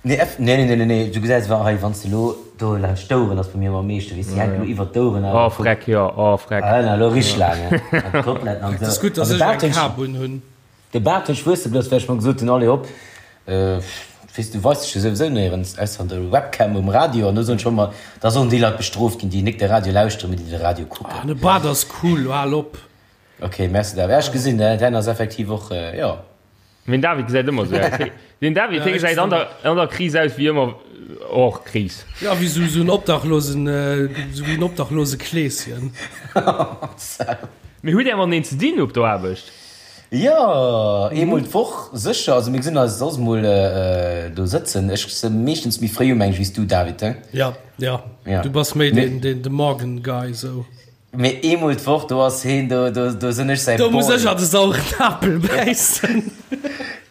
Nee, eff, nee, nee, nee, nee, du gesäis awer hei, wann s de elo do laanscht d'Oueren ass bei mir ëmmer am meeschten, weess de, déi hänken elo iwwert d'Oueren awer. Oh, freck, jo, oh, freck. Ah, elo richteg laang, he, an d'Koteletten an esou. Et ass gutt, dass ech eng Kap un hunn. De Baart huet wuesse blëss, well ech mer gesot hunn, allez hop, weess du weist dech jo souwisou néierens, ausser an der Webcam um Radio, an do soen ech och ëmmer, da sollen déi Leit bestrooft ginn, déi nik de Radio lauschteren, mee déi de Radio kucken. Ah, de Baart ass cool, lo hal op. Ok, merci David. Ja, ech gesinn, däin ass effektiv och, jo. Den David gesäit ëmmer esou aus. Den David, hie gesäit an der, an der Kris aus wéi ëmmer, och Kris. Ja, wéi esou en Obdachlosen, esou wéi en obdachlose Kleeschen. Mee hutt Är mateneen ze dinn op der Aarbecht? Jo, eemol d'Woch sécher. Also mir gesinn eis soss mol do sëtzen. Ech si meeschtens méi fréi um, meng ech, wéi s du, David, he? Ja, ja. Du bass méi den, den, de Morgen-Guy, sou. Mee eemol d'Woch, do ass heen, do, do, do sinn ech säi Boy. Do muss ech an de sauren Apel bäissen.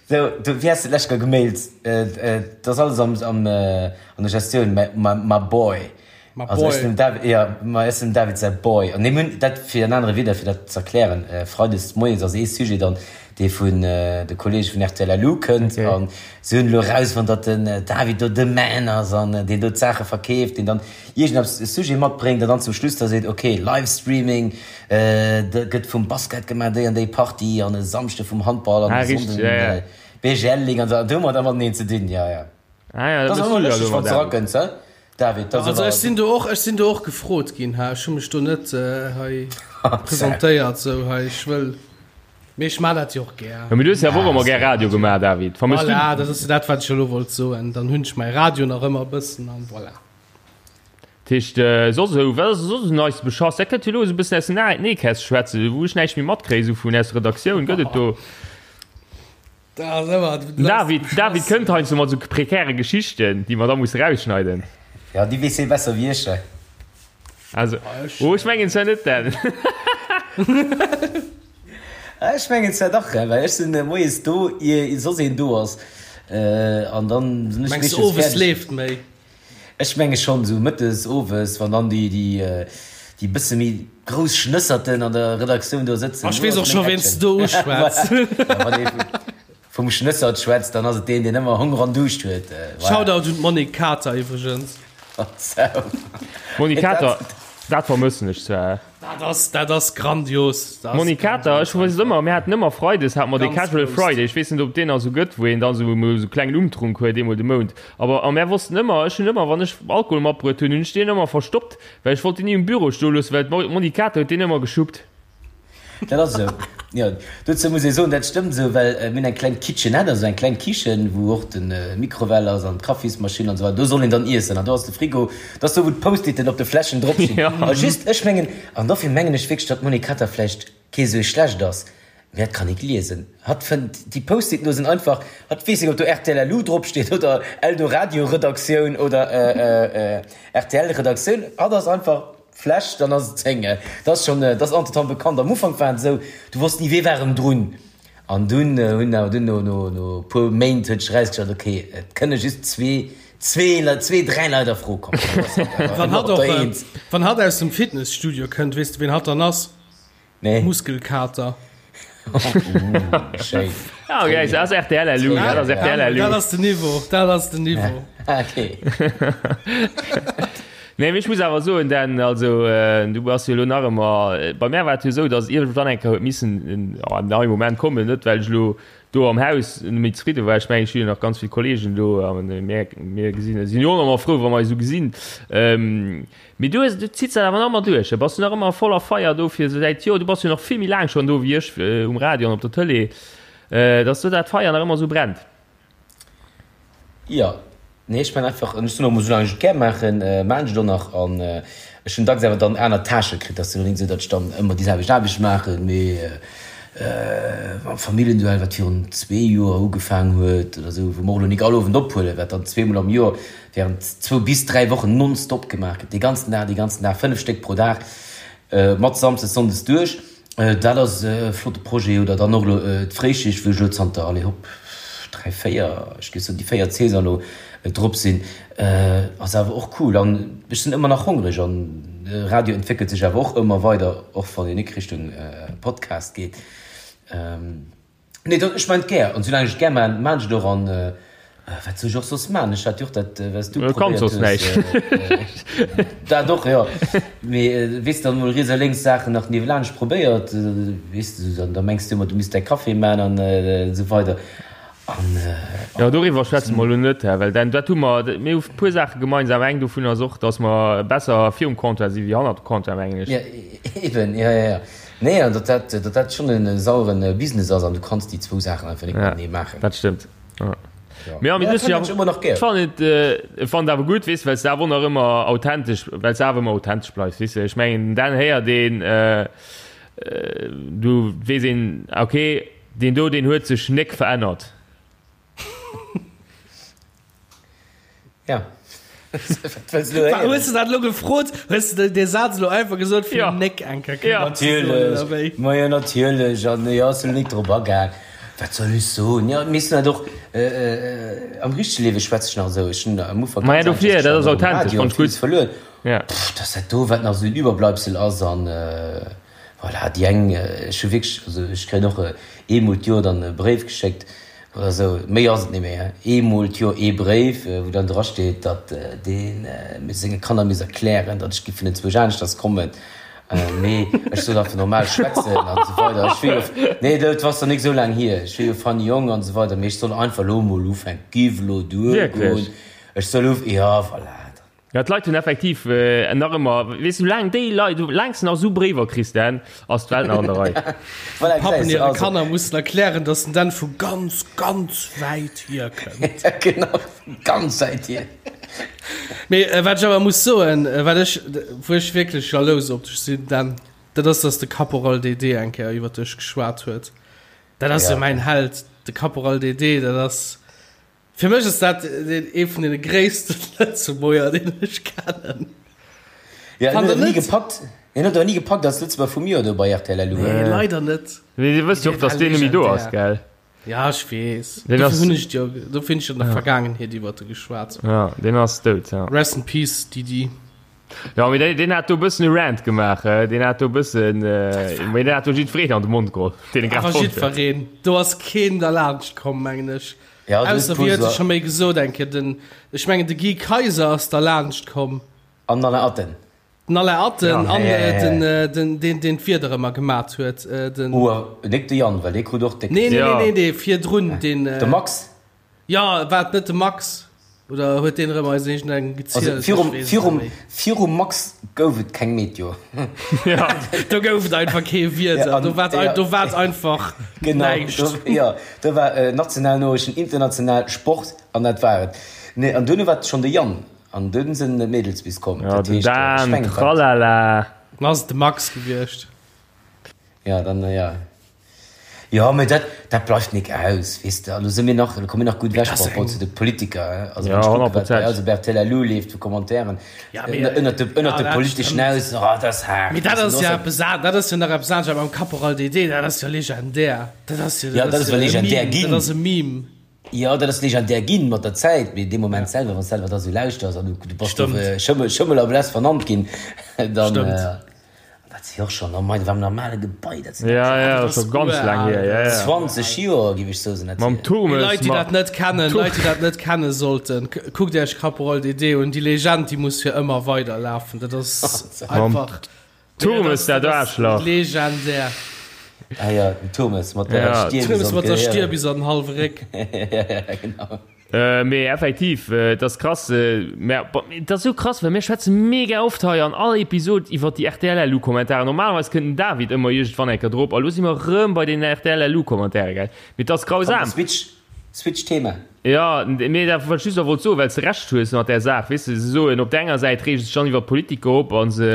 So, du, wéi has de d'lescht Kéier gemailt? Et ass alles am, am, an der Gestioun, my, my, my boy. My Also ech boy. sinn dem David, jo, ma ech sinn dem David säi Boy. An mir hunn dat, fir an anere Wieder, fir dat z'erklären, Freides moies ass ee Sujet dann, dee vun de Kollege vun rtl LU kënnt. Okay. An si hunn elo erausfonnt, datt den David do de Man ass an deen do d'Saache verkeeft, deen dann iergendeppes e Sujet matbréngt an dann zum Schluss da seet, ok, Livestreaming gëtt vum Basket gemaach, déi an déi Partie an e Samschde vum Handball an Ah, e richteg, Sonnden ja, ja. BGL Ligue an esou. An do hu mer da mateneen ze dinn, jo, jo. Ah ja, Dat da ass bist ëmmer du ja lëschteg, elo wann mat s de David. erakënns, he David? Dat ass Also awer. ech sinn do och, ech sinn do och gefrot ginn, he, ech hu mech do net hei presentéiert sou hei, ech wëll, mee ech maan dat jo och gär. Jo, mee du hues jo awer och ëmmer gär Radio gemaach, David. Vermëss du. Voilà, dat ass jo dat, wat ech elo wollt soen. Dann hunn ech mäi Radio nach ëmmer e bëssen an voilà. Dat heescht, soss esou, wat ass soss esou Neies beschass? Dat kënnt jo elo esou e bëssen aus dem Nähkästchen schwätzen, wou ech näischt méi matkréien, esou vun aus der Redaktioun. Gëtt et do. Den David, David kënnt heiansdo mat esou prekäre Geschichten, déi mer da musse rausschneiden. Ja, déi weess hie besser wéi ech. Also, oh, ech mengen zwar net, Dan. Ech mengen zwar dach, well ech sinn moies do, ier soss een do ass. An dann sinn ech Mengs du, meeschtens owes fäerdeg. leeft méi? Ech menge schonn, esou mëttes, owes, wann dann déi, déi, déi bësse méi grouss Schnësserten an der Redaktioun do sëtzen. Ech weess och scho ween s de do uschwätz. Wann ee vum Schnëssert schwätzt, dann ass et deen, deen ëmmer Honger an Duuscht huet. Voilà. Shoutout un d'Monique Kater iwwregens. Monique Kater, dat vermëssen ech zwar. Dat ass, dat ass grandios. Dat ass Monique Kater, ech weess et ëmmer, mir haten ëmmer Freides hate mer de Ganz Casual grouss. Friday, ech weess net ob deen nach esou gëtt, wou een dann esou emol esou klengen Umtrunk huet eemol de Mount. Awer a mär wossten ëmmer, ech hunn ëmmer, wann ech Alkohol matbruet hunn, hunn ech deen ëmmer verstoppt, well ech wollt deen ni um Büro stoe loossen, well d'Monique Kater huet deen ëmmer geschuppt. Dat ass esou, jo. Dozou muss ee soen, dat stëmmt esou, well mir hunn eng kleng Kitchenette, also eng kleng Kichen, wou och de Mikrowell ass an d'Kaffismaschinn an esou weider. Do soll een dann iessen an do ass de Frigo, dat ass do, wou d'Post-iten op de Fläschen drop stinn. A just, ech mengen, an dofir mengen ech wierklech, datt d'Monique Kater vläicht kee sou schlecht ass, mee hatt kann nik liesen. Hatt fënnt déi Post-iten do sinn einfach, hatt weess nik, ob do rtl LU drop steet oder Eldoradio-Redaktioun oder RTL-Redaktioun. Hatt ass einfach. Fläsch, dann ass et seng. Dat ass schonn, dat ass entretemps bekannt. Am Ufank war et esou, du wosst ni, wee war erëm drun. An dunn hunn awer dunn no, no, no e puer Méint huet sech erausgestallt, ok, et kënne just zwee, zwee Leit, zwee, dräi Leit a Fro kommen. Wann hatt och, wann hatt aus dem Fitnesstudio kënnt, weess de ween hatt dann ass? Nee. Muskelkater. Schéin. Ah, okay, dat ass RTL LU, dat ass RTL LU. Dat ass den Niveau, dat ass den Niveau. Okay. Nee, mee ech muss awer soen, Dan, also du bass jo elo nach ëmmer, bei mär war et jo esou, datt iergendwann eng Kéier huet missen en neie Moment kommen, net well ech elo do am Haus net méi zefridde war, ech mengen ech hu jo nach ganz vill Kollegen do a mir mir gesinn, sinn jo och ëmmer frou wa mer eis esou gesinn. Mee du hues, du zitts dat awer nach ëmmer duerch, bass du nach ëmmer voller Feier do fir säit, jo du bass jo nach vill méi laang schonn do wéi ech um Radio an op der Tëlee, dass do dat Feier nach ëmmer esou brennt. Jo, nee ech man einfach, ech soen och emol, soulaang ech et gär maachen, maan ech et och nach an ech hunn dacks awer dann aner Tâchë kritt, ass jo net esou, datt ech dann ëmmer déi selwecht Aarbecht maachen, mee mam Familljenduell, wat virun zwee Joer ugefaang huet oder esou, wou mer och elo nik all Owend ophuelen, wat dann zweemol am Joer während zwou bis dräi Wochen nonstop gemaach gëtt, dee ganzen Dag, dee ganzen Dag, fënnef Stéck pro Dag, mat Samsdes, Sonndes duerch. Dat ass e flotte Projet. Oder dann och elo d'Fréischicht, wou ech elo zanter, allez hopp, dräi, véier, ech géif soen déi véiert Saison elo drop sinn, ass awer och cool. An ech sinn ëmmer nach hongreg an de Radio entwéckelt sech awer och ëmmer weider, och wann een nik Richtung Podcast geet. Nee, dat, ech maan et gär, an soulaang ech et gär maan, maan ech et och, an wat soll ech och soss maan? Ech hat jo och dat, wat s du Du kanns probéiert soss hues, näischt. dat och, jo, mee weess de, dann emol riets a lénks Saachen nach niewelaanscht probéiert, weess de, dann da mengs de ëmmer, du misst däi Café maan an esou weider, an. Jo, doriwwer schwätze mer elo net, well dann, dat hu mer, mir hu puer Saache gemeinsam, eng dovun ass och, dass mer besser virum Comptoir si wéi hannert dem Comptoir, mengen ech. Jo, eben, jo, jo, jo. Nee, an datt dat, datt dat schonn en sauere Business ass an du kanns déi zwou Saachen einfach net matenee maachen. Dat stëmmt. Ja. Mee ja, mee Ja, du dat ja, ech ëmmer nach gär. ech fannen et, äh, fannen et awer gutt, weess, well s de awer och nach ëmmer authentesch, well s de awer ëmmer authentesch bleifs, weess de. Ech mengen, dann héiert een, äh, äh, du weess een, okay, deen do, deen huet sech nek verännert. Ja. Wat wëlls du elo héieren? Hues de dat elo gefrot? Hues de dee Saz elo einfach gesot, fir Ja. den Nick eng Kéier Ja. kënnen ze soen, oder wéi? Natierlech, ma jo natierlech. An jo, ech sinn elo nik drop agaang. Wat soll ech soen? Jo, mir sinn halt och, am richtege Liewe schwätze ech nach esou. Ech hunn am Ufank Ma ja, ganz anescht dofir, dat geschwat, ass och um authentesch, Radio, fand ech villes gutt. verluer. Ja. Pff, dass dat do, wat nach esou en Iwwerbleibsel ass an voilà, déi eng, ech hu wierklech, also ech kréien och eemol d'Joer dann e Bréif geschéckt oder esou, méi ass et net méi, hein, eemol d'Joer ee Bréif, wou dann drasteet, datt dee senge Kanner misst erklären, datt ech géif vun enzwousch aneschters kommen, mee ech soll einfach normal schwätzen an esou weider. Ech wier jo, nee, dat ass nach nik esou laang hier, ech wier jo funny Jong an esou weider, mee ech soll einfach elo emol ufänken, giff elo duergoen, ech soll uf, jo, voilà. Ja, d'Leit hunn effektiv nach ëmmer, weess du, soulaang déi Leit, soulaang s de nach esou Bréiwer kriss, Dan, ass d'Welt nach an der Rei. Voilà, Pappen gesäis de, hire also. Kanner mussen erklären, dass den Dan vu ganz, ganz wäit hier kënnt. Ja, genau, vu ganz wäit hier. Mee wat ech awer muss soen, wat ech, wou ech wierklech jalous op dech sinn, Dan, dat ass, dass de Caporal DD eng Kéier iwwer dech geschwat huet. Dat ass jo Ja. mäin Held, de Caporal DD, dat ass. Fir mech ass dat ee vun den gréissten Lëtzebuerger, deen ech kennen. Ja, Fannt en huet der awer ni net? gepackt. En huet awer ni gepackt als Lëtzebuerger vum Joer do bei rtl LU. Nee, leider net. Mee dir wësst jo och, Dee war dass deen net méi do ass, legendär. gell? Ja, ech weess. Deen Dofir ass- hunn ech jo, dofir hunn ech an der Vergaangenheet iwwert e geschwat. Ja, deen ass dout, ja. Rest in peace, Didi. Ja, mee deen, deen hat do e bëssen e Rant gemaach, eh? Deen hat do e bëssen, mee deen hat do jiddwereen an de Mond geholl, deen e grad Awer fonnt huet. jiddwereen. Do ass keen derlaanscht komm, mengen ech. Ja, du Ausser, wéi huet e scho méi gesot eng Kéier, den, ech mengen de Guy Kaiser ass derlaanscht komm. An den Alain Atten. Den Alain Atten Ja, an ja, ja, ja. den, den, deen, deen d'Wieder ëmmer gemat huet, den. Ouer, nik de Yann, well dee krut och déck. Nee, nee, Ja. nee, nee, dee virdrun, deen. De Max? Ja, war et net de Max? Oder huet deen erëm eis iergendengem Also gezielt? virum, Ech weess et virum, net méi. virum Max gouf et keng Meteo. Ja. Do gouf et einfach kee Wieder. Ja, an, do war et, ja. do war et einfach Genau, näischt. do, ja, do war äh, national Noriichten, international Sport an dat war et. Nee, an duerno war et schonn de Yann an dunn sinn d'Mädels bis komm. Ja, Dat den heescht, äh, ech Dan, mengen, dat, tralala. Dann ass et de Max gewiescht. ja, dann, ja. Jo, mee dat, dat bleift nik aus, weess de. A lo si mir nach, lo komme mir nach gutt ewech par rapport zu de Politiker, also Ja, wann ech kucke wat bei 100%. eis op rtl elo leeft vu Commentairen Ja, mee, ënnert de, ënnert ja, de dat politeschen stëmmt. Aus, oh, dat ass haart. Mee dat Weess de, ass do ja ass eppes an, dat ass jo nach eppes anescht, awer mam Caporal DD, dat ass jo legendär. Dat ass jo, Ja, dat ass jo ewell e legendär Meme, ginn. dat ass e Meme. Jo, dat ass legendär ginn mat der Zäit, mee dee Moment selwer, wann s de selwer da sou lauschters an du, du bass do Stëmmt. Schëmmel, Schëmmel a Bless vernannt ginn, dann, Stëmmt. Dat si och schonn, oh mei, dat war am normale Gebai, dat sinn Ja, ja, dat ass scho ganz laang hier, ja, ja. 20 Joer, géif ech soen, sinn dat Mam hier. Turmes, Leit, déi ma dat net kennen, Leit, déi dat net kenne sollten, kuckt Iech Caporal DD un, déi Legend, déi muss fir ëmmer weiderlafen, dat ass einfach Turmes, dat Aarschlach. Legendär. Ah ja, den Turmes mat der Ja. Stier bis Turmes an mat der d'Gehier. Stier bis an den hallwe Réck. Ja, genau. Mee effektiv, et ass krass, mä bon, et ass esou krass, well mir schwätze mega oft hei an all Episod iwwer déi RTL-LU-Kommentaren. Normalerweis kënnt den David ëmmer iergendwann eng Kéier drop a lo si mer erëm bei den RTL-LU-Kommentare, gell? Mee et ass grausam. Switch, switch Thema. Jo, mee dat wat ech just nach wollt soen, well s de Recht hues mat där Saach, weess de, se soen op der enger Säit reege sech dann iwwer d'Politiker op a se,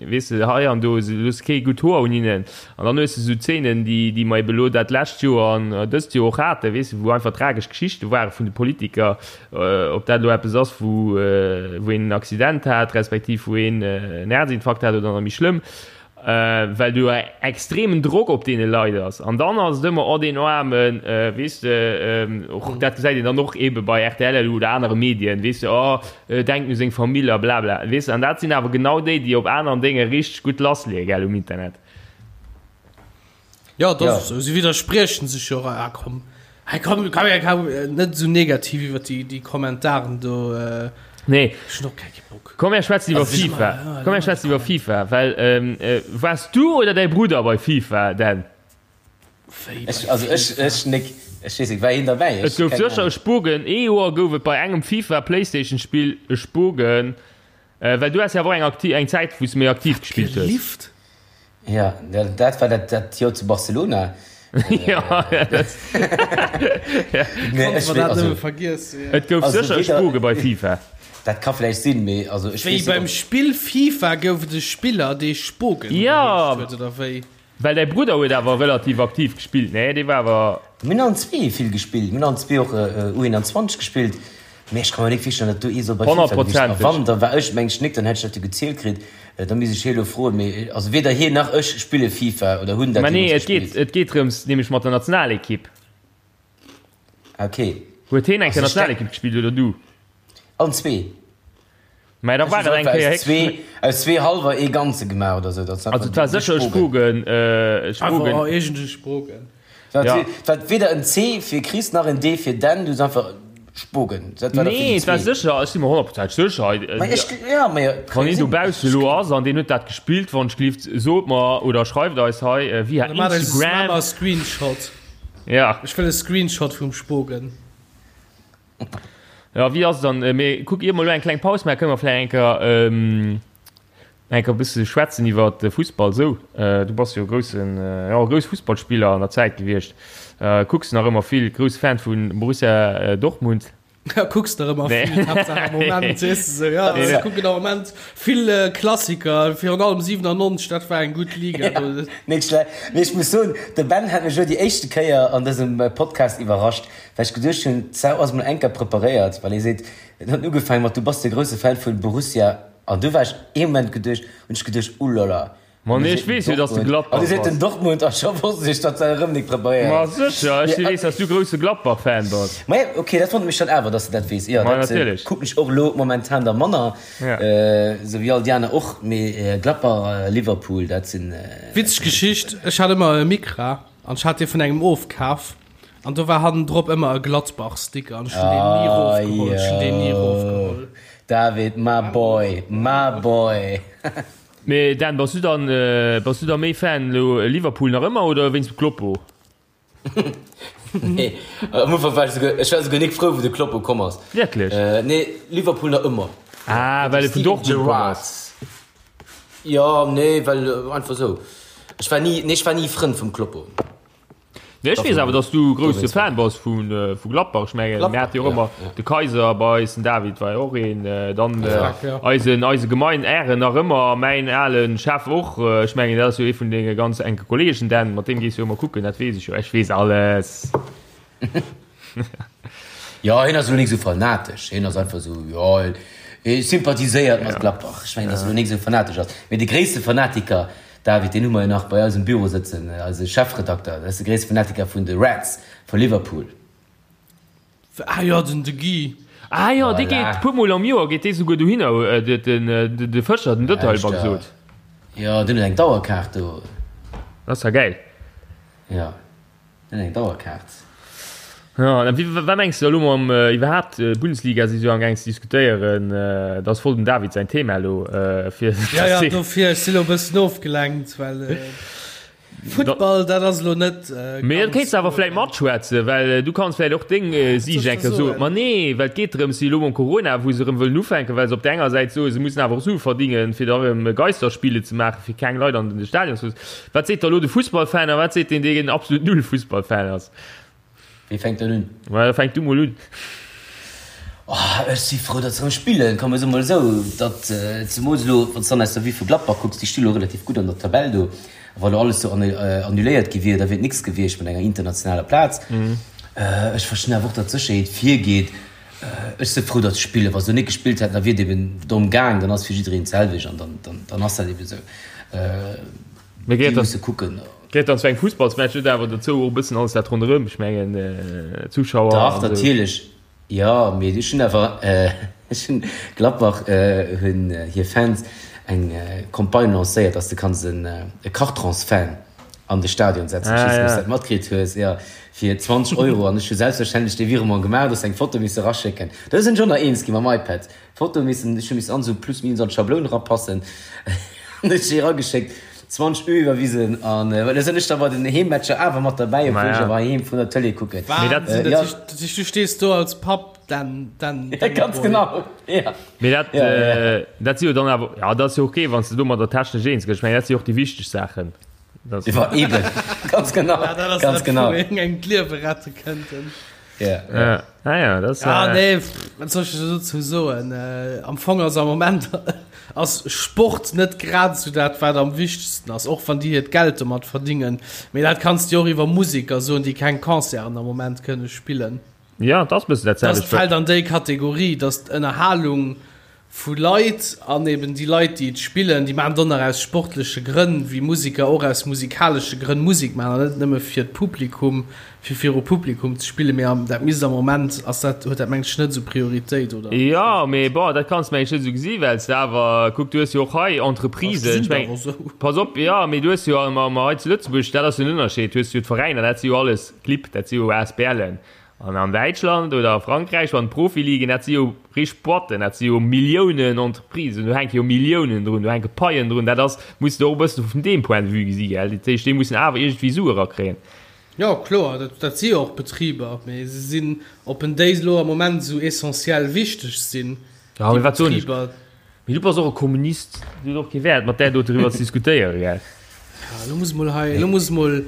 weess de, hei an do, se loosse kee gutt Hoer un hinnen. An dann hues de esou Zeenen, déi, déi mer ebe lo dat lescht Joer an dëst Joer och haten, weess de, wou einfach tragesch Geschichte ware vun de Politiker, ob dat elo eppes ass, wou, wou een en Accident hat, respektiv wou een en Häerzinfarkt hat oder nach méi schlëmm, well do e extremen Drock op deene Leit ass. An dann ass et ëmmer, oh deen Aarmen, weess de, och dat gesäit een dann och ebe bei rtl elo oder anere Medien, weess de, oh denkt u seng Famill a blabla, weess de. An dat sinn awer genau déi, déi op aneren Dénge richteg gutt lassleeë, gell, um Internet. Ja, dat Ja. ass esou. Si widderspriechen sech jo och. Ah, komm. Hey, komm, komm, ja, komm, äh, net esou negativ iwwer déi, déi Kommentaren do. Äh, Nee. ech hunn och keng Bock. Komm, mir schwätzen iwwer Also, ich- FIFA. Ja, Komm, mir schwätzen iwwer FIFA, well ähm, äh, waars du oder däi Brudder bei FIFA, Dan? Wéi Ech, bei also ech, FIFA? ech nik, ech weess nik, war een derbäi? Et Ech, gouf keng sécher e Ahnung. Spogen. Ee Joer gouf et bei engem FIFA Playstation Spill e Spogen, äh, well du has jo awer och eng akti eng Zäit, wou s du méi aktiv gespillt hues. Gelift? Ja, dat, dat war dat, dat Joer zu Barcelona. Ja, dat, ja. Nee, Konnte ech man wee, dat also, nëmme vergiessen, ja. Et gouf also sécher e weder, Spoge bei FIFA. dat ka vläicht sinn, mee also ech Wéi weess net, beim ob. Spill FIFA gouf et e Spiller, dee Spogen Ja, geheescht huet, oder wéi? well däi Brudder huet awer relativ aktiv gespillt, nee? Dee war awer. Mir hunn allen zwee vill gespillt. Mir hunn allen zwee och U21 gespillt. Mee ech ka mer nik virstellen, datt do ee soll bei FIFA gewiescht sinn. A wann, da war ech meng ech nik, dann hätt ech dat jo gezielt kritt. Da misst ech hie elo froen. Mee also weder hien nach ech spille FIFA oder hunn dat Mä nee, jeemools et geet, gespillt. et geet drëms, nämlech mat der Nationalekipp. Ah, okay. Huet hien eng Also Kéier ech denk. Nationalekipp gespillt oder du? Allen zwee. Mä da Ech war hunn et eng einfach Kéier aus héchst. zwee, aus zwee hallwer ee ganze gemaach oder sou. Dat Also et war sécher e Spogen, e Spogen. Einfach iergend e Spogen. Dat Ja. war weder en C fir Chris nach en D fir Dan, du hues einfach Spogen. Dat war da fir Nee, déi et war zwee. sécher, ech si mer honnertprozenteg sécher. Ma ech, ja, ma jo, Wann een sinn. dobausse elo ass an deen huet dat gespillt, wann ech gelift, sot mer oder schreift eis hei via Oder maacht eis e Instagram. Maach e Screenshot. Ja. Ech wëll e Screenshot vum Spogen. Ja, wéi ass et dann? Mee kuck, ier mer elo eng kleng Paus maachen, kënne mer vläicht eng Kéier, eng Kéier e bësse schwätzen iwwer de Fussball esou. Du bass jo e groussen, jo, e grousse Fussballspiller an der Zäit gewiescht. Kucks nach ëmmer vill, grousse Fan vu Borussia Dortmund. Ja, kucks nach ëmmer vill, Haaptsaach am Moment, weess de sou. Ja, ech kucken am Moment vill Klassiker, virun allem 97, dat war eng gutt Liga do. Net schlecht. Mee ech muss soen, de Ben hat mech elo déi éischte Kéier an dësem Podcast iwwerrascht. Well ech geduecht hunn, d'Sau ass mol enker preparéiert, well hie seet, en huet ugefaangen mat, du bass de grousse Fan vun Borussia, an du war ech ee Moment geduecht, hunn ech geduecht, ulala, Ma an du nee, ech seet weess jo, dass de Dortmund, an du Gladbach seet den bass. Dortmund, a scho wosst ech, datt se erëm nik preparéiert Ma ass. sécher, ech Mee, weess, dass du grousse Gladbach-Fan bass. ma jo, ok, dat wonnert mech dann awer, dass de dat weess. Jo, Ma dat natierlech. kucken ech och elo momentan da manner, Ja. esou wéi all déi aner och, mee Gladbach, Liverpool, dat sinn. Witzeg Geschicht, ech hat ëmmer e Micra an ech hat dee vun engem ofkaf. An do war hannendrop ëmmer e Gladbach-Sticker an ech hunn deen ni erofgeholl. Ech hunn deen ni erofgeholl. David, my boy, my boy. Mee Dan, bass du dann, bass du da méi Fan elo Liverpool nach ëmmer oder wéinst dem Kloppo? Nee, am Ufank war ech souguer, ech war souguer nik frou wou de Kloppo komm ass. Wierklech? Nee, Liverpool nach ëmmer. Ah, well e vun Dortmund komm ass. Jo, nee, well einfach esou. Ech war ni, nee, ech war ni Frënd vum Kloppo. Nee, ech weess awer, dass du grousse Fan bass vu Gladbach. Ech mengen, mir hate jo och ëmmer de Kaiser bei eis, den David war jo och een, dann eisen, eise Gemein Ären nach ëmmer, mäin ale Chef och. Ech mengen, dat ass jo ee vun denge ganz enke Kolleegen, Dan, mat deem gees du jo ëmmer kucken, dat weess ech jo. Ech weess alles. Jo, hien ass elo nik esou fanatesch, hien ass einfach esou, jo, hie sympathiséiert mat Gladbach. Ech mengen, dass e elo nik esou fanatesch ass. Mee de gréisste Fanatiker David, deen hu mer jo nach bei eis um Büro sëtzen, eise Chefredakter, dat ass de gréisste Fanatiker vun de Reds vu Liverpool. Ah jo, den de Guy. Ah jo, dee Voilà. geet puer mol am Joer geet dee souguer dohinner, de de Fëscher, den Dëtterl beim gesot. Jo, deen huet eng Dauerkaart do. Dat ass ja gäil. Jo. Eng Dauerkaart. Ja, an wéi, wat mengs de elo mam iwwerhaapt Bundesliga si se jo am gaang ze diskutéieren, dat ass voll dem David säin Thema elo fir. Ja, ja, dofir, ech si lo e bëssen ofgelenkt, well Futtball, dat ass elo net. Mee dat kéints de awer vläit matschwätzen, well du kanns vläit och deng Siicht eng Kéier soen. Ma nee, well et geet drëms, elo mam Corona, wou se erëm wëllen ufänken, well se op där enger Säit soen, se mussen awer och Sue verdingen, fir da erëm Geisterspiele ze maachen, fir keng Leit an de Stadion ze loossen. Wat seet da lo de Fussballfan a wat seet deen, deen absolut null Fussballfan ass? Wee fänkt dann un? Ma da fänk du mol un. Oh, ech si frou, datt se erëm spillen. Komm, ech soe mol esou, datt zemools elo, wann s de dann aus der Vue vu Gladbach kucks, déi sti lo relativ gutt an der Tabell do. A wa lo alles do annuléiert gi wier, da wier et nix gewiescht mat enger internationaler Plaz. Ech verstinn awer och, datt d'Sécherheet virgeet. Ech si frou, datt se spillen. Wa se lo net gespillt hätten, da wier et eben dorëm gaang. Dann ass fir jiddereen d'selwecht an dann ass dat eben esou. Mee Déi gehéiert musse kucken. Gehéiert dann zu engem Fussballsmatch net awer dozou och e bëssen alles dat ronderëm? Ech mengen Zuschauer Dach, an esou. natierlech. Jo, mee ech hunn awer, ech hunn, Gladbach hunn hir Fans eng Campagne lancéiert, dass de kanns e Cartrons-Fan an de Stadion setzen. Ech weess net, ob s de dat matkritt hues. Jo, fir 20 Euro. An ech hu selbstverständlech dee Virement gemaach, dass eng Foto misse raschécken. Do sinn ech och nach eens gi mam iPad. Foto missen, ech hu missen an esou plus minus an d'Schabloun erapassen, an ech déi erageschéckt, 20 Euro iwwerwisen, an well da sinn ech da bei den Heemmatcher awer mat derbäi, obwuel ech awer heiheem vun der Tëlee kucken. Mee dat, Wahnsinn, Ja. dat heescht, dat heescht du stees do als Papp, den, den, den Ganz Boy. genau, ja. Mee dat, Ja, ja. äh, dat si jo dann awer, ja, dat ass jo ok, wann s de domadder technesch eens gëss. Ech mengen, dat si jo och déi wichteg Saachen. Dat, Iwwer eben, ganz genau, Ja, dat ass ganz dat, genau. wou een engem d'Liewe rette kënnten. Ja, ja. ja. Ah ja, dat ass, Ja, äh, nee, wat soll ech dozou soen? Äh, am Fong ass am Moment ass Sport net grad esou dat, wat am wichtegsten ass, och wann déi hiert Geld domat verdingen. Mee dat kanns de jo och iwwer Museker soen, déi keng Concerten am Moment kënne spillen. Ja, et ass e bëssen dat selwecht. Dat fält an déi Kategorie, dass d'Ënnerhalung vu Leit an eben déi Leit, déi et spillen, déi maachen et och nach aus sportleche Grënn, wéi Museker och aus musikalesche Grënn Musek maachen an net nëmme fir d'Publikum, fir viru Publikum ze spillen. Mee am, dat misst am Moment, ass dat, huet dat mengen ech net esou Prioritéit, oder? Jo, mee bon, dat kanns de mengen ech net esou gesi well s de awer, kuck, du hues jo och hei Entreprisen, ech mengen, pass op, jo, mee du hues jo am, am hei zu Lëtzebuerg, dat ass jo den Ënnerscheed, du hues jo d'Veräiner, dat si jo alles Clibb, dat si jo ASBLen. An an Däitschland oder a Frankräich an d'Profiligen, dat si jo richteg Boîten, dat si jo Milliounen Entreprisen, do hänke jo Milliounen drun, do hänke Paien drun. Dat ass, muss de och e bëssen vun deem Point de vue gesi, gell. Dat heescht, déi mussen awer iergendwéi Sue erakréien. Jo, kloer, dat, dat si jo och Betriber, mee se sinn, ob en déi elo am Moment esou essentiell wichteg sinn, déi Betriber. Mee du bass och e Kommunist, et huet och kee Wäert mat där do driwwer ze diskutéieren, gell? Ja, elo muss mol hei, elo muss mol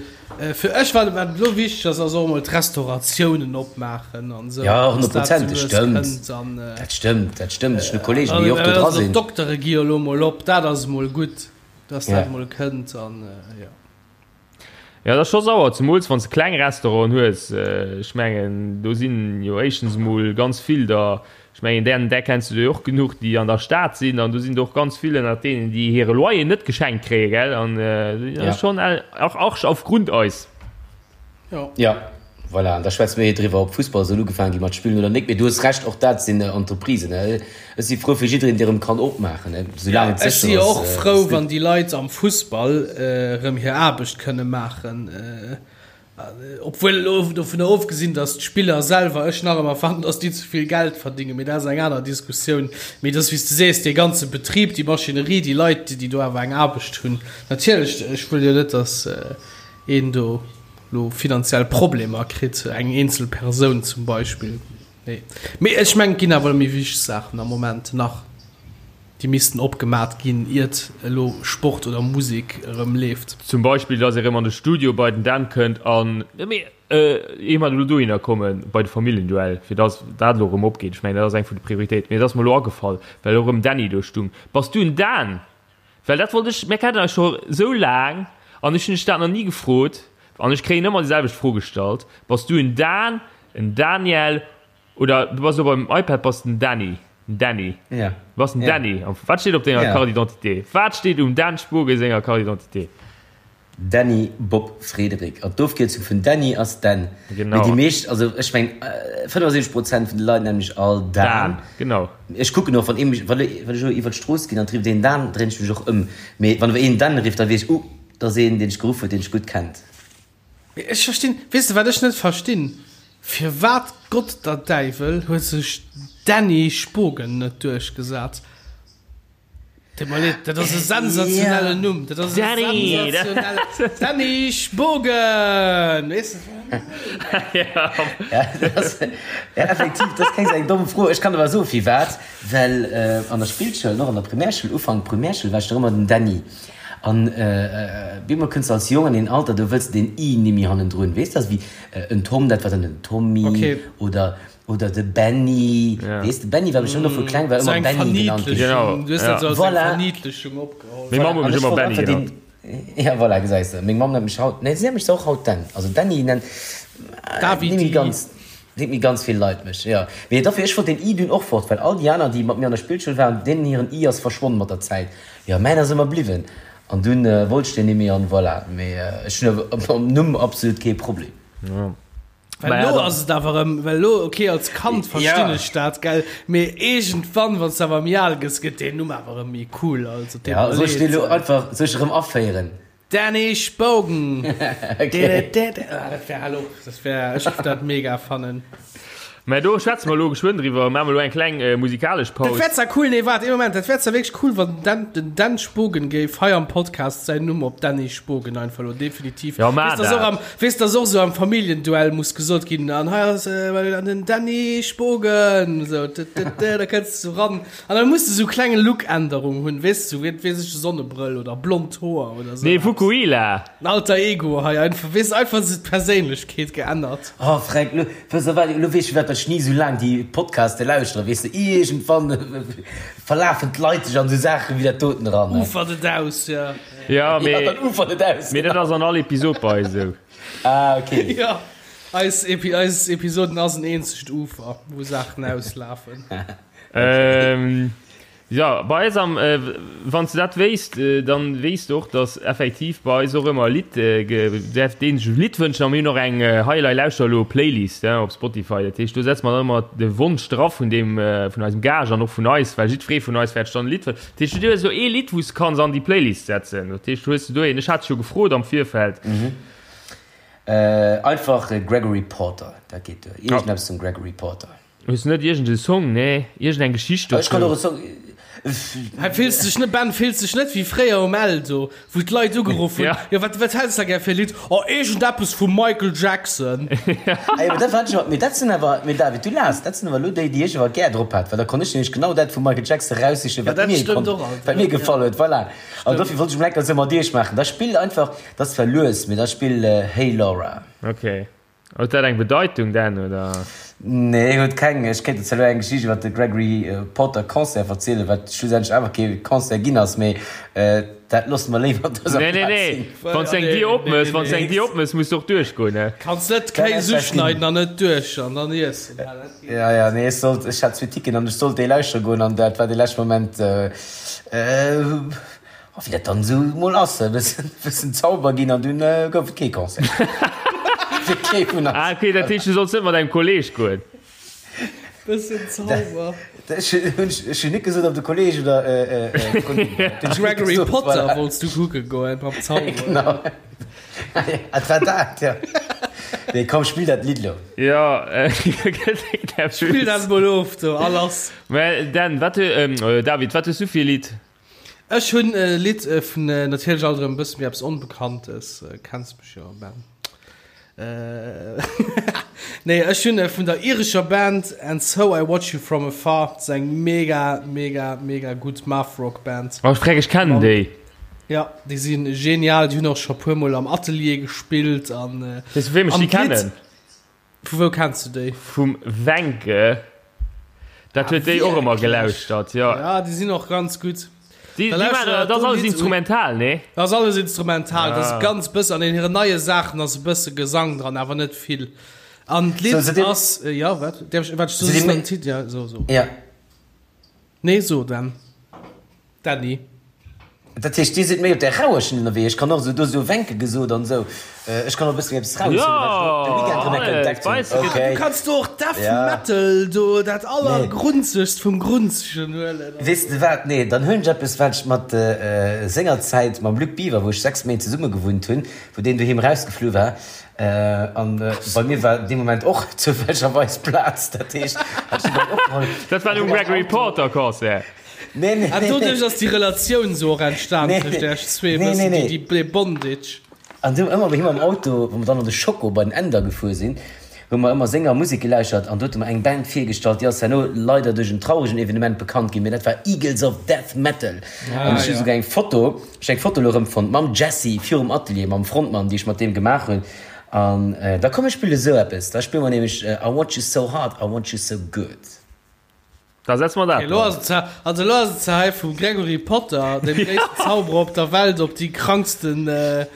fir ech, wat wat elo wichteg ass, ass och emol d'Restauratiounen opmaachen an esou, Ja, dass dat esou lues stëmmt. kënnt an Dat stëmmt, dat stëmmt. Ech hunn e Kolleegen, déi och do dra sinn. D'Doktere gi jo elo mol op, dat ass emol gutt, dass dat mol kënnt an jo. Jo, dat ass scho sauer, zemools wann s de kleng Restauranten hues. Ech mengen, do sinn jo éischtens emol ganz vill der, ech mengen, där, där kenns du der jo och genuch, déi an der Stad sinn, an do sinn der och ganz vill ënnert deenen, déi hire Loyer net geschenkt kréien, gell? An dat ass schonn auch Arsch auf Grundeis. Jo. Jo. Voilà, an da schwätze mir hei driwwer, ob Fussball soll ugefaange gi mat spillen oder nik. Mee du hues Recht, och dat sinn Entreprisen. Ech si frou fir jiddereen, dee erëm kann opmaachen, soulaang et sécher ass. Ech si jo och frou, wann déi Leit am Fussball erëm hir Aarbecht kënne maachen. Obwuel elo dovunner ofgesinn, datt d'Spiller selwer, ech nach ëmmer fannen, datt déi ze vill Geld verdingen, mee dat ass eng aner Diskussioun. Mee et ass, wéi s de sees, dee ganze Betrib, déi Maschinerie, déi Leit, déi do awer eng Aarbecht hunn. Natierlech, ech wëll jo net, datt een do lo finanziell Problemer kritt, eng eenzel Persoun zum Beispill. Nee. Mee ech mengen, et ginn awer méi wichteg Saachen am Moment nach, déi missten opgemat ginn, iert elo Sport oder Musek erëm leeft. Zum Beispill, dass ee rëm an de Studio bei den Dan kënnt an, mee ier mer elo dohinner kommen, bei de Familljenduell, fir dass dat elo erëm opgeet. Ech mengen, dat ass eng vun de Prioritéiten. Mee et ass mer elo agefall, well elo erëm Dany do stung. Bass du en Dan? Well dat wollt ech, mir kennen eis scho sou laang an ech hunn dech dat nach ni gefrot an ech kréien ëmmer déi selwecht Fro gestallt, Bass du en Dan, en Daniel oder du bass elo beim iPad, bass den Dany, den Dany, Ja. du bass den Ja. Dany. Wat steet op denger Ja. Carte d'identité? Wat steet um Dan Spogen senger Carte d'identité? Dany Bob Frédéric. An d'Ofkierzung vun Dany ass Dan. Genau. Mee déi meescht, also ech meng 75 Prozent vun de Leit nennen mech all Dan. Dan, genau. Ech kucken och, wann ee mech, wann ech elo iwwer d'Strooss ginn an et rifft een Dan, dréin ech mech och ëm. Mee wann awer een Dan rifft, da weess ech, uh, dat ass een, deen ech geruff huet, deen ech gutt kennt. Mee ech verstinn, weess de wat ech net verstinn? Firwat Gott der Däiwel huet sech Dany Spogen net duerchgesat? Tut mir leed, dat ass e sensationellen Numm. Dat ass e Danny! sensationelle Danny Spogen! Weess de? Ja, dat ass, ja, effektiv, dat ass keng sou eng domm Fro. Ech kann awer soen, firwat, Well an der Spillschoul an och an der Primärschoul, Ufank Primärschoul, war ech nach ëmmer den Dany. An bemol kënns de als Jong an een Alter, do wëlls de deen i nimmi hannendrun, weess de? Also wéi en Tom, dat war dann den Tommy Okay. oder Oder de Benny, Ja. weess de, Benny war mech ëmmer vu kleng war So ëmmer eng Benny genannt ginn. Genau, Verniedlechung. Du hues ja. dat so als eng Voilà. Verniedlechung opgeholl. Meng Mamm Voilà, huet an mech ech ëmmer wollt Benny einfach genannt. deen, ja voilà, gesäis de, meng Mamm nennt mech haut, nee, si nennt mech och haut Dan, also Dany nennt, äh, Davidi. némmi ganz, nennt méi ganz vill Leit mech, jo. Mee dofir, ech wollt deen i dunn och fort, well all déi aner, déi mat mir an der Spillschoul waren, deenen hiren i ass verschwonn mat der Zäit, jo, mäin ass ëmmer bliwwen, an dunn wollt ech deen nimmi an voilà, mee ech hunn awer mam Numm absolut kee Problem. Ja. Well Naja, elo dann- ass et awer erëm, well elo, okay, als Kand verstinn Ja. ech dat, gell, mee iergendwann, wann s de awer méi al gëss, gëtt deen Numm awer erëm méi cool, also deet Ja, mer soll ech deen leed. elo einfach, soll ech erëm aféieren? Danny Spogen! Okay. Ah, dat wär hallo, dat wär, ech géif dat mega fannen. Mä do schwätze mer elo geschwënn driwwer, maache mer elo eng kleng musikalesch Dat Paus. wär zwar cool, nee, waart ee Moment, dat wär zwar wierklech cool, wann den Dan, den Dan Spogen géif hei am Podcast säin Numm op Danny Spogen einfach elo definitiv. Ja, maach Weess, dass och dat. am, weess, dass och sou am Familljenduell muss gesot ginn, an hei ass äh, an den Danny Spogen, sou, d, d, d, da kënns du sou ran. An da muss de sou kleng Look-Änderung hunn, weess du, wéi, weess ech, Sonnebrëll oder blond Hoer oder sou Nee, eppes. Fukuhila! En Alter Ego hei einfach, weess, einfach sou d'Perséinlechkeet geännert. Oh Fränk, lo, weess de wat, lo weess ech firwat ech ni sou laang déi Podcaste lauschtere, weess de, iergendwann verlafen d'Leit sech an sou Saachen wéi dat doten eran, ne? Ufert et aus, ja. Ja, Ja, mee, dann ufert et aus, mee dat genau. ass an all Episod bei eis esou. Ah, okay. Ja. Eis Epi eis Episoden ass en eenzegt Ufer, wou Saachen auslafen. Ähm, ja, bei eis am, äh, wann s du dat wéisst, äh, dann weess du och, dass effektiv bei eis och ëmmer e Lidd, äh, ge däerf deen sech e Lidd wënschen a mir hunn och eng äh, Hei Elei Lauschter elo Playlist, äh, op Spotify. Dat heescht, do setze mer dann ëmmer de Wonsch dra vun deem, äh, vun eisem Gaascht an och vun eis, well jiddweree vun eis wäert sech dann e Lidd wënschen. Dat heescht, du hues elo ee Lidd, wou s du kanns an déi Playlist setzen. Dat heescht, hues du do een? Ech hat dech jo gefrot am Virfeld. Äh, einfach Gregory Porter, dat geet duer. Iergendeppes vum Gregory Porter. Hues du net iergend e Song, nee, iergend eng Geschicht dozou? Ech kann och e Song. Hei fills dech net, Ben, fills dech net wéi fréier um Eldo, wou d'Leit ugeruff hunn, jo wat, wat häls de gär fir e Lidd? Oh, iergendeppes vum Michael Jackson. Ah jo, mee dat war ech awer, mee dat sinn awer, mee David, du laachs, dat sinn awer elo déi, déi ech awer gär drop hat, well da konnt ech nämlech genau dat vum Michael Jackson eraussichen, wat mir konnt, wat mir gefall huet, voilà. An dofir wollt ech mol enker esou mat iech maachen. Da spill einfach, dat ass zwar lues, mee da spill Hey Laura. Okay. Huet dat eng Bedeitung denn, oder? Nee, huet keng. Ech kéint der zwar elo eng Geschicht iwwer de Gregory Porter Concert verzielen, wat schlussendlech awer kee Concert ginn ass, mee dat loosse mer léiwer op dëser Nee, nee, Plaz nee. sinn. Wann s du eng Dier opmëss, wann s du eng Dier opmëss, muss du och duerchgoen, ne? Kanns net Kéis uschneiden an net duerch an dann iessen. Ja, ja, nee, ech sollt, ech hat zwee Ticketen an ech sollt déi lauschtere goen an dat war de leschte Moment. A wéi dat dann esou mol ass, e bëssen, bëssen Zauber ginn an dunn gouf et kee Concert. Fir kee vun eis. Ah ok, dat heescht du solls net mat engem Kolleg goen? Bëssen Zauber. Ech hunn, ech hunn net gesot, ob de Kolleg oder d'Kollegin war. De Gregory Potter wollts du kucke goen mam Zauber. Genau. Et war dat, jo. Nee, komm, spill dat Lidd lo. Jo, Spill dat mol of do, a lass. Mä Dan, wat, David, wat hues du fir e Lidd? Ech hunn e Lidd vun, natierlech alt erëm e bësse méi eppes Onbekanntes, kenns mech jo, Ben. Nee, ech hunn vun der irescher Band And So I Watch You From Afar, dat ass eng mega, mega, mega gutt Math-Rock Band. Oh, freck, ech kennen déi. Ja, déi si genial, déi hunn och scho puer mol am Atelier gespillt an. Weess du, vu wem ech déi kennen? Vu wou kenns du déi? Vum Wencke. Dat huet déi och ëmmer gelauschtert, jo. Ja, déi sinn och ganz gutt. Déi, déi maachen, dat ass alles instrumental, nee? Dat ass alles instrumental, dat ass ganz bëssen, an hiren neie Saachen ass e bësse Gesang dran, awer net vill. An d'Lidd ass, jo, wat? Däerf ech, wat, soss den Titel, ja, so, so. Ja. Nee, so dann. Dany. Dat heescht, Dir sidd méi op där rauer Schinn ënnerwee. Ech kann och esou, do esou Wenke gesot an esou. Ech kann och e bësse méi eppes Raues hunn, wat ech de Weekend erëm eng Kéier entdeckt hunn. Okay. Du kanns do och Death Metal do, dat allergrunzegst vum Grunzegen huelen. Weess de wat, nee, dann huelen ech eppes, wat ech mat sengerzäit mam Luc Biver, wou ech 6 Méint zesumme gewunnt hunn, wou deen doheem erausgeflu war, an bei mir war dee Moment och zoufällegerweis Plaz, dat heescht, hat ech deen dann opgeholl. Dat war um Gregory Porter Concert. Nee, nee, An nee, doduerch nee. ass déi Relatioun sou och entstan Nee, tëscht nee. iech zwee, Nee, bëssen nee, nee. déi, déi Bondage. An du ëmmer bei him am Auto, wou mer dann an de Schoko bei den Änder gefuer sinn, hu mer ëmmer senger Musek gelauschtert an do huet e mer eng Band virgestallt, déi ass herno leider duerch en trauregen Evenement bekannt ginn, mee dat war Eagles of Death Metal. An ech hu souguer eng Foto, ech hu eng Foto elo erëmfonnt mam Jesse virum Atelier, mam Frontmann, déi ech mat deem gemaach hunn. An da komm ech spille sou eppes, da spille mer nämlech I Want You So Hard, I Want You So Good. Da setze mer dat Okay, lo ass et ze, also lo ass et ze hei vum Gregory Potter, dem gréissten Zauberer op der Welt, op déi kranksten äh,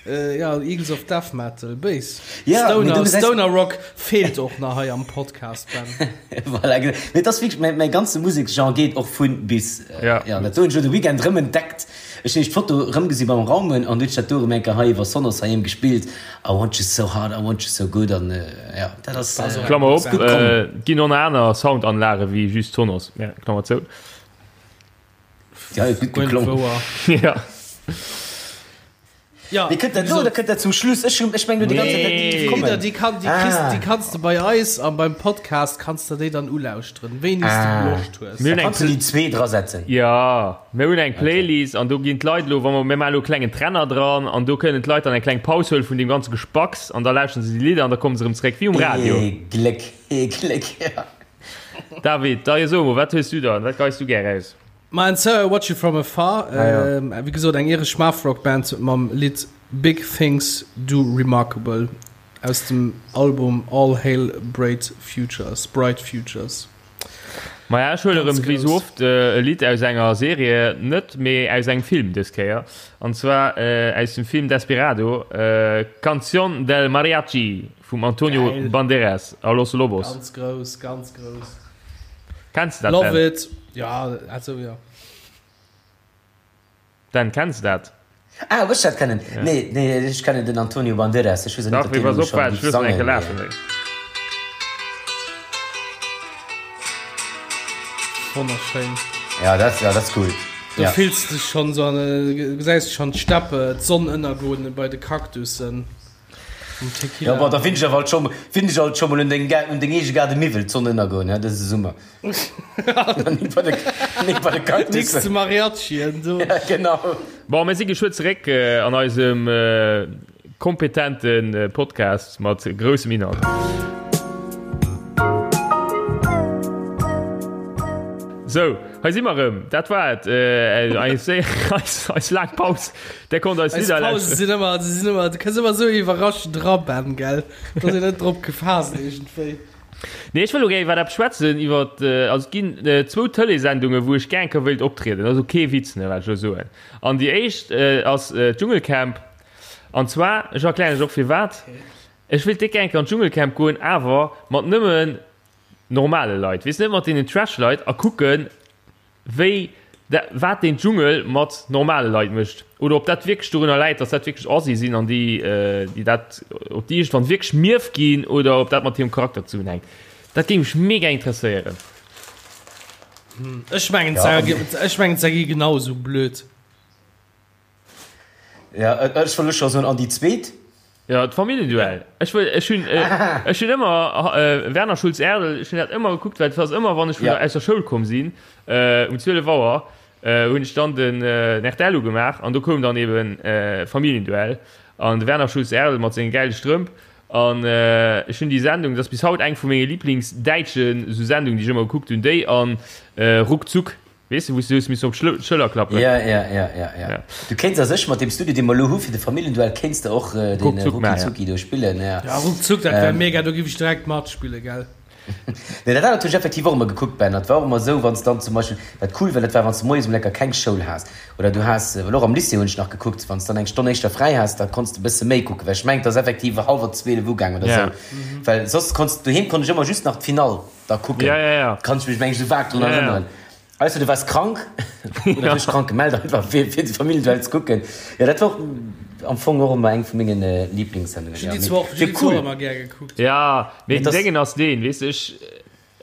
äh, ja, Eagles of Death Metal. Béis. Ja, mee Stoner, du gesäis- Stoner Rock feelt och nach hei am Podcast, Ben. Voilà, genau. Mee et ass wierklech, mäi, mäi ganze Museksgenre geet och vun bis. Ja. Ja, dat do hunn ech elo de Weekend erëm entdeckt. Ech hunn nämlech d'Foto erëmgesi beim Raumen an du hunn ech dat do erëm eng Kéier hei iwwer Sonos heiheem gespillt. I want you so hard, I want you so good an ja, dat ass Klammer op, et ginn och nach aner Soundanlage wéi just Sonos, ja, Klammer zou. Ja, huet gutt geklongen. Ja. Ja, Mee kënnt dat elo oder kënnt dat zum Schluss? Ech hunn, ech mengen elo déi ganz Zäit, dat géif kommen. Déi Lidder, déi kann, déi kriss, déi kanns de bei eis an beim Podcast kanns de déi dann ulauschteren, wéini s de Loscht hues. Mir hunn Da eng kanns du déi zwee drasetzen. Ja, mir hunn eng Playlist an do ginn d'Leit elo, wa mer, mir maachen elo e klengen Trenner dran an do kënnen d'Leit dann eng kleng Paus huelen vun deem ganze Gespacks an da lauschteren se déi Lidder an da komme se erëm zeréck, wéi um Radio. Ee Gléck, ee Gléck, ja. David, da jo so emol, wat hues du dann, wat geis du gär aus? Ma And So I Watch You From Afar, wéi gesot eng iresch Math-Rock Band mam Lidd Big Things Do Remarkable aus dem Album All Hail Bright Futures, Bright Futures. Maja, ech huele rëm wéi sou oft e Lidd aus enger Serie, net, mee aus engem Film dës Kéier, an zwar aus dem Film Desperado, Canción del Mariachi vum Antonio Geil. Banderas a Los Lobos. Ganz grouss, ganz grouss. Kenns de dat, Love Ben? it. Ja, also ja. Dan, kenns de dat? Ah, ob ech dat kennen? Nee, nee, ech kennen den Antonio Banderas. Ech weess och net, Dach, ob mee deen pass elo op, schonn waart, ech géif loossen eng sangen, Kéier lafen. mee. Wonnerschéin. Ja, dat, ja, dat ass cool. Do Ja. fills de dech schonn esou an, gesäis de schonn d'Steppe, d'Sonn ënnergoen bei de Kaktussen um Tequila. Ja, bon, da finn ech awer alt scho, finn ech alt scho mol un deng, un deng eege Gaarde Miwwel d'Sonn ënnergoen, hä, dëse Summer. Nik bei de, nik bei de Nix Kaktussen. ze Mariachien do. Ja, genau. Bon, mir si geschwë zeréck an eisem kompetente Podcast mat groussem Inhalt. Sou, hei si mer erëm. Dat war et. Eis, eis, eis laang Paus. Där konnt eis Eis Lidder Pausen lauschteren. sinn ëmmer, se sinn ëmmer, du kënns ëmmer esou iwwerraschend dra, Ben, gell? Da ass een net drop gefaasst iergendwéi. Nee, ech wëll elo gär iwwer eppes schwätzen, iwwer, also et ginn zwou Tëleessendungen, wou ech gär eng Kéier wéilt optrieden. Dat ass elo kee Witz, ne, wat ech elo soen. An déi éischt ass d'Dschungelcamp. An zwar, ech erklären lech och firwat, ech wéilt déck gär eng Kéier an d'Dschungelcamp goen, awer mat nëmmen normale Leit, weess, net mat deenen Trash-Leit, a kucken, wéi da, wat deen Dschungel mat normale Leit mécht oder ob dat wierklech dorunner läit, dass dat wierklech Assi sinn an déi, déi dat, ob déi iergendwann wierklech mierf ginn oder ob dat mat hirem Charakter zesummenhänkt. Dat géing mech mega interesséieren. Ech mengen, ech mengen, se gi genau esou blöd. Ja, ech wëll elo scho soen, an déi zweet? Ja, d'Familljenduell. Ech wëll, ech hunn, ech hunn ëmmer Werner Schulz-Erdel, ech hunn dat ëmmer gekuckt, well et ass ëmmer, wann ech vun der, aus der Schoul komm sinn, um 12 Auer, hunn ech dann den rtl ugemaach an do koum dann eben Familienduell an de Werner Schulz-Erdel mat senge gäile Strëmp an ech hunn déi Sendung, dat ass bis haut eng vu menge Lieblingsdäitschen esou Sendungen, déi ech ëmmer gekuckt hunn, déi an Ruckzuck. Weess de, wou s du hues missen op d'Schëller klappen? Ja, ja, ja, ja, ja. Du kéints a sech mat deem Studio, dee mer elo hu fir de Familljenduell, kéints de och den Ruckzuck maachen, Rucki-Zucki do spillen, ja. Ja, Ruckzuck, dat wär mega, do giff ech direkt matspillen, gell? Nee, dat anert hunn ech effektiv och ëmmer gekuckt, Ben. Dat war och ëmmer esou, wann s dann zum Beispill, wat cool war, dat war, wann s de moies um Lecker keng Schoul has oder du has, well och am Lycée hunn ech nach gekuckt, wann s dann eng Stonn éischter fräi has, da konns de e bësse méi kucken, well ech mengen, et ass effektiv hallwer 12 ugaang oder Ja. esou, well soss konns, doheem konnt ech ëmmer just nach d'Finall da kucken. Ja, ja, ja. Kann ech mech, meng ech, esou vag drun Ja, ja. erënneren. Ausser du wars krank oder du hues dech krank gemellt einfach fir fir de Familljenduell ze kucken. Jo dat war och am Fong och ëmmer eng vu mengen Lieblingssendungen. Ech hunn Ja déi mee zwar och, ech wier hunn déi zwar cool. och ëmmer gär gekuckt. Ja, mee Mee den dass. Déngen ass deen, weess de, ech,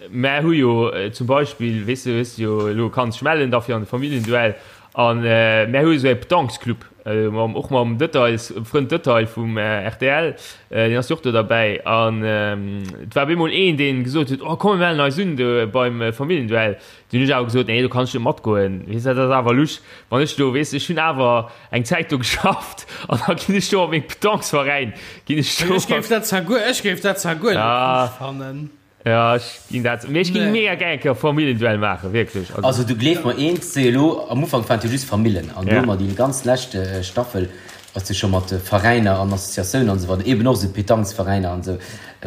mär hu jo zum Beispill, weess de, hues jo elo kanns dech mellen da fir an de Familljenduell an mär hu esou e Petanquesclub, mam, och mam Details, Frënd Detail vum rtl, deen ass jo och do derbäi an et war op eemol een, deen gesot huet, oh komm mir mellen eis un do beim Familljenduell. Dunn hunn ech awer gesot, nee do kann ech net matgoen, weess de, dat ass awer lusch, wann ech do, weess de, ech hunn awer eng Zäit do geschafft an da ginn ech do op meng Petanquesveräin, ginn ech do. Ech géif dat zwar guer, ech géif dat zwar guer net lusch fannen. Ja, ech ginn dat, mee ech ging Nee. mega gär eng Kéier Familljenduell maachen, wierklech. Also du gleef mer eent, se elo am Ufank waren et jo just Famillen an elo Ja. mat déi ganz lescht Staffel ass jo scho mat Veräiner an Associatiounen an esou weider, eben och esou Petanquesveräiner an esou.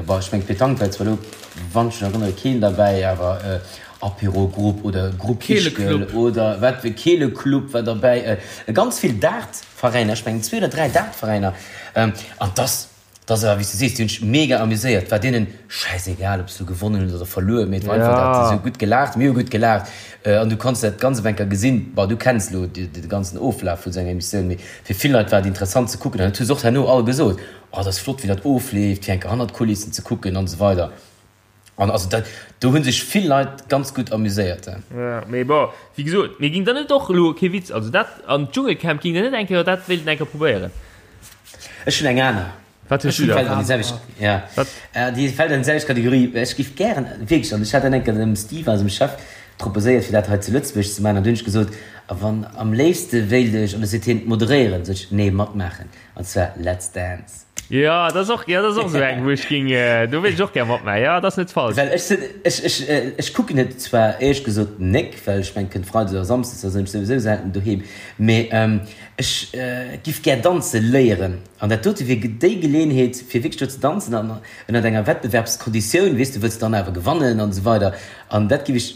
Bon, ech mengen d'Petanque war zwar elo, wann ech mech erënnere, keen derbäi, awer Apéro-Grupp oder Grupp Ischgl Keeleclub. oder wat wéi Keeleclub war derbäi, ganz vill Dartveräiner, ech mengen zwee oder dräi Dartveräiner an dass Et ass awer wéi s du sees, déi hunn sech mega amuséiert. Et war deenen schäisegal, ob se lo gewonnen hunn oder verluer, mee et war einfach dat, se hu gutt gelaacht, mir hu gutt gelaacht an du konns dat ganz op eng Kéier gesinn. Bon, du kenns lo de ganzen Oflaf vun esou enger Emissioun, mee fir vill Leit war et interessant ze kucken an dat hu se och herno all gesot, Oh, dat ass flott, wéi dat ofleeft, fir eng Kéier hannert d'Kulissen ze kucken an esou weider. An also dat, do hu sech vill Leit ganz gutt amuséiert. Jo, mee bon, wéi gesot, mee ging der net och elo, kee Witz, also dat an d'Dschungelcamp, ging der net eng Kéier dat wéilten eng Kéier probéieren? Ech hunn eng aner. Wat hues du Déi da? fält an déi selwecht, ja, Wat? déi fält an déi selwecht Kategorie. Ech géif gären, wierklech, an ech hat dat eng Kéier dem Steve, eisem Chef, proposéiert, fir dat hei zu Lëtzebuerg ze maachen, an du hunn ech gesot, a wann, am léifste wéilt ech, an du seet hien, moderéieren, sot ech, nee, matmaachen, an zwar Let's Dance. Jo, dat ass och, jo, dat ass och esou eng, wou ech ging, do wéilt ech och gär matmaachen. Jo, dat ass net falsch. Well ech sinn, ech, ech, ech kucken et zwar éierlech gesot nek, well ech mengen, kënnt Freides oder Samsdes, da sinn ech souwisou selten doheem, mee ech giff gär danze léieren an dat dote wier déi Geleeënheet, fir wierklech do ze danzen an ënnert enger Wettbewerbskonditioun, weess de, wëlls dann awer gewannen an esou weider an dat giff ech.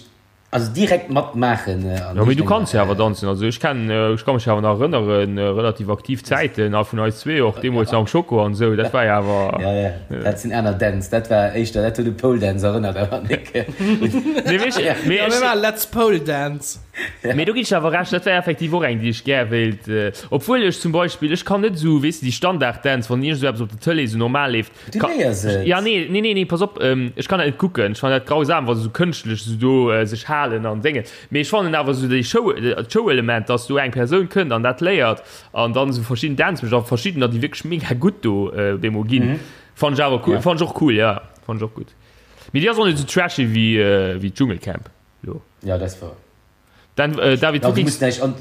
Also direkt matmaachen. Jo, mee du kanns jo awer danzen. Also ech kennen, ech ka mech awer nach erënneren, relativ aktiv Zäiten a vun eis zwee och, deemools am Schoko an esou, dat war jo awer. Ja, ja, dat sinn aner Dänz. Dat war éischter, dat huet u Pole Dance erënnert, awer nik. Mee weess, mee ech. Ja, let's Pole Dance. Mee do ginn ech awer Recht, dat wär effektiv och eng, déi ech gär wéilt. Obwuel ech zum Beispill, ech kann net esou, weess de, déi Standarddänz, wann iergend esou eppes op der Tëlee esou normal leeft, Du léiers et. Ja, nee, nee, nee, nee, pass op, ähm, ech kann dat net kucken. Ech fannen dat grausam, wa se sou kënschtlech sou do äh, sech halen an Déngen. Mee ech fannen awer sou déi Show, äh, d'Show-Element, dass do eng Persoun kënnt an dat léiert an dann sou verschidden Dänz mécht a verschiddener, déi wierklech mega gutt do äh, op eemol ginn. Fannen ech awer cool, Ja. fannen ech och cool, ja, fannen ech och gutt. Mee déi ass och net sou trashy wéi, äh, wéi d'Dschungelcamp lo. Ja, dat ass wouer. Dann, äh, David, Ja, du du gings. muss näischt an,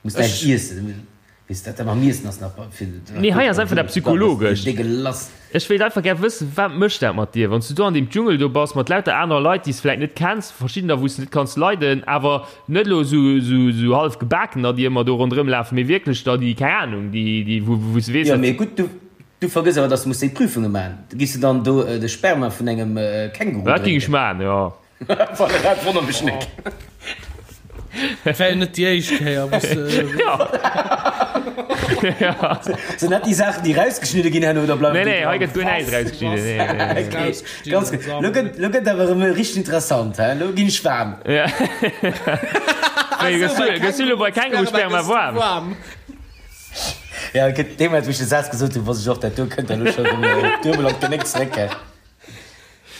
muss näischt iessen. Weess dat da mam Iessen ass nach fir. Nee, hei ass einfach dat Psychologescht. Dégueulasse. Ech wéilt einfach gär wëssen, wat mécht dat mat dir, wann s du do an deem Dschungel do bass, mat lauter anerer Leit, déi s vläit net kenns, verschiddener, wou s de net kanns leiden, awer net elo esou, esou, esou hallef Gebakener, déi ëmmer do ronderëm lafen, mee wierklech der, déi, keng Anung, déi, déi, wou, wou s de weess, Jo, dat. mee gutt, du, du vergëss awer, dass du muss déi Prüfunge maachen. Giss de dann do de Sperma vun engem Känguru Dat géing ech drénken? maachen, jo. Voilà, dat wonnert mech nek. Et wär jo net déi éischt Kéier, wou se. Ja. Sinn dat déi Saachen, déi rausgeschnidde ginn herno oder bleiwen Nee, déi nee, hei dran? gëtt guer näischt rausgeschnidden. Nee, nee, nee. Okay, ganz gutt. Lo gëtt, lo gëtt awer erëm richteg interessant, hä? Lo ginn ech waarm. Ja. Wéi, gëss du, gëss du lo bei Kängurusperma waarm? Ja, gëtt dee Moment, wou ech de Saz gesot hunn, wosst ech och, dat do kënnt da lo scho erëm duebel op d'Genéck zeréck, hä?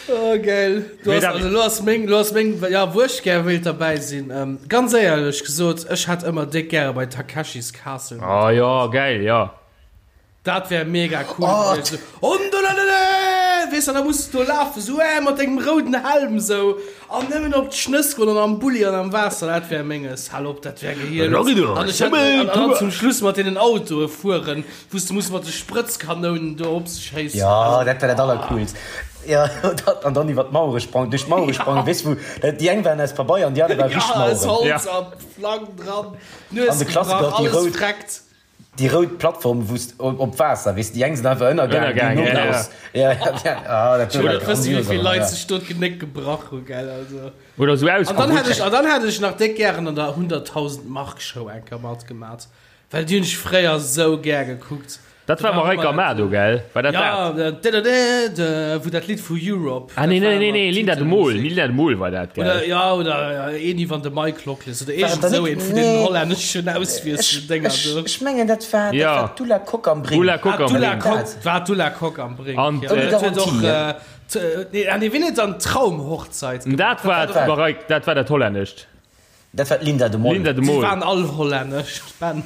Oh, geil. Du Mee hast, David- also, lo ass meng, lo ass meng, ja, wou ech gär wéilt derbäi sinn. Ähm, ganz éierlech gesot, ech hätt ëmmer déck gäre bei Takeshis Castle Ah ja, geil, ja. Dat wär mega cool Oh, gewiescht. So, Ondolalala! Weess de, da muss du do lafen, sou, äh, mat dengem rouden Helm, sou, an nëmmen op d'Schnëss goen an am Bulli an am Waasser, dat wär menges. Hal op, dat wär gehielt. An ech hätt, an, an dann zum Schluss mat deenen Autoe fueren. Wou s de muss mat de Sprëtzkanounen do op se schéissen. Jo, dat war dat allercoolst. Jo, dat, an dann iwwer d'Mauere sprangen, duerch d'Mauere sprangen, weess wou, dat, déi eng waren aus Pabeier an déi aner ware richteg Ja, aus Maueren. Holz a Flang dran, Nues An de Klassiker, gebrach, déi alles rout, vreckt. déi rout Plattform, wou s op, op Waasser, weess, déi eng sinn einfach ënnergaangen, déi Ënnergaangen, no ja, ja. raus. Ja, ja, ja, ah, dat Ech wëll war net wëssen, wéi grandios, vill awer, Leit ja. sech do d'Genéck gebrach hu, gell, also. Oder sou An dann hätt ausgerutscht. ech, an dann hätt ech nach déck gären an der 100.000 Mark Show eng Kéier matgemat. Well déi hunn ech fréier sou gär gekuckt. Dat war Mareike Amado, gell? War dat dat? Ja, wou dat Lidd vu Europe. Ah nee, nee, nee, nee, Linda de Mol, Linda de Mol war dat, gell? Oder, ja, oder een iwwer de Mike Lockless oder iergend esou een vun deenen hollänneschen Auswiesseldénger do. Ech mengen, dat war, dat war d'Ulla Kock am Brink. Ulla Kock am Ulla Brink. Kock, war d'Ulla Kock am Brink, An, ja. Dat huet och, nee, ah nee, wien huet dann Traumhochzeit gemaach? Dat war d'Mareike, dat war dat hollännescht. Dat war d'Linda de Mol. Linda de Mol. Si waren all hollännesch, Ben.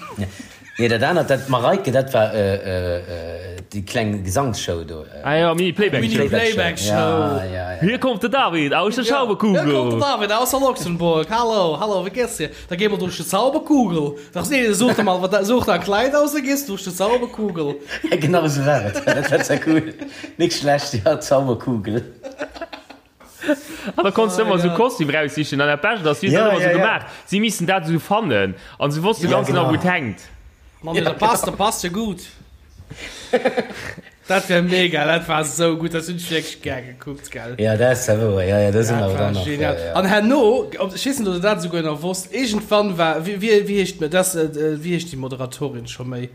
Nee, dat anert, dat Mareike, dat war déi kleng Gesangsshow do. Ah ja, Mini Playback Show. Mini Playback Show. Ja, ja, ja. Hier kommt de David aus der Zauberkugel. Hier kommt de David aus der Luxemburg. Hallo, hallo, wie geht's dir? Da gehen wir durch die Zauberkugel. Ach nee, such dir mal, such dir ein Kleid aus, da gehst du durch die Zauberkugel. Ja, genau esou war et. Dat war zwar cool. Nik schlecht, ja, Zauberkugel. An da konntest du ëmmer esou Kostüm raussichen an dat Bescht ass, si hunn dat ëmmer esou gemaach, si missten dat esou fannen an se wosste ganz genau, wou et hänkt. Mann, dat passt, dat passt jo gutt. Dat wär mega, dat war esou gutt, dat hunn ech wierklech gär gekuckt, gell. Ja, dat ass zwar wouer, ja, ja, do si mer awer dann nach. Genial. An herno, ech weess net, ob der dat esouguer nach wosst, iergendwann war, wéi, wéi heescht, dat, wéi heescht déi Moderatorin scho méi?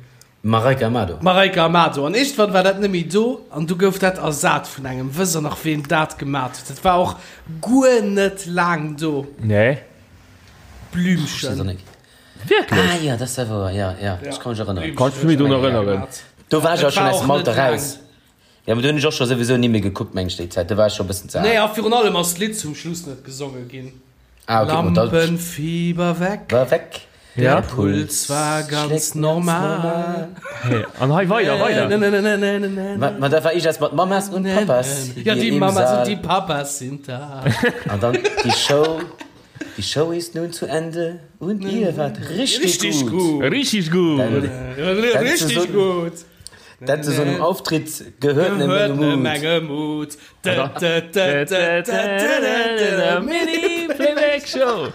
Mareike Amado. Mareike Amado. An iergendwann war dat net méi do an du gouf dat ersat vun engem. Wësst der nach ween dat gemat huet? Dat war och guer net laang do. Nee. Blümchen. Wierklech? Ah jo, dat ass ja wouer, jo, jo, ech ka mech erënneren. Kanns du mech drun erënneren? Do war ech awer schonn aus dem Alter raus. Jo, mee do hunn ech och scho souwisou ni méi gekuckt, meng ech, déi Zäit. Do war ech scho e bëssen ze al. Nee, a virun allem ass d'Lidd zum Schluss net gesonge ginn. Ah, okay, ma da. Lampenfieber weg. War weg. Der Puls war ganz normal. Hey, an hei weider, weider. Ma, ma da war ich erst mat Mamas und Papas. Ja, die Mamas und die Papas sind da. An dann die Show, die Show ist nun zu Ende und ihr wart richtig, richtig gut. gut. Richtig gut. Richtig gut. Dat zu so einem Auftritt gehört eine Menge Mut. Mini Playback Show.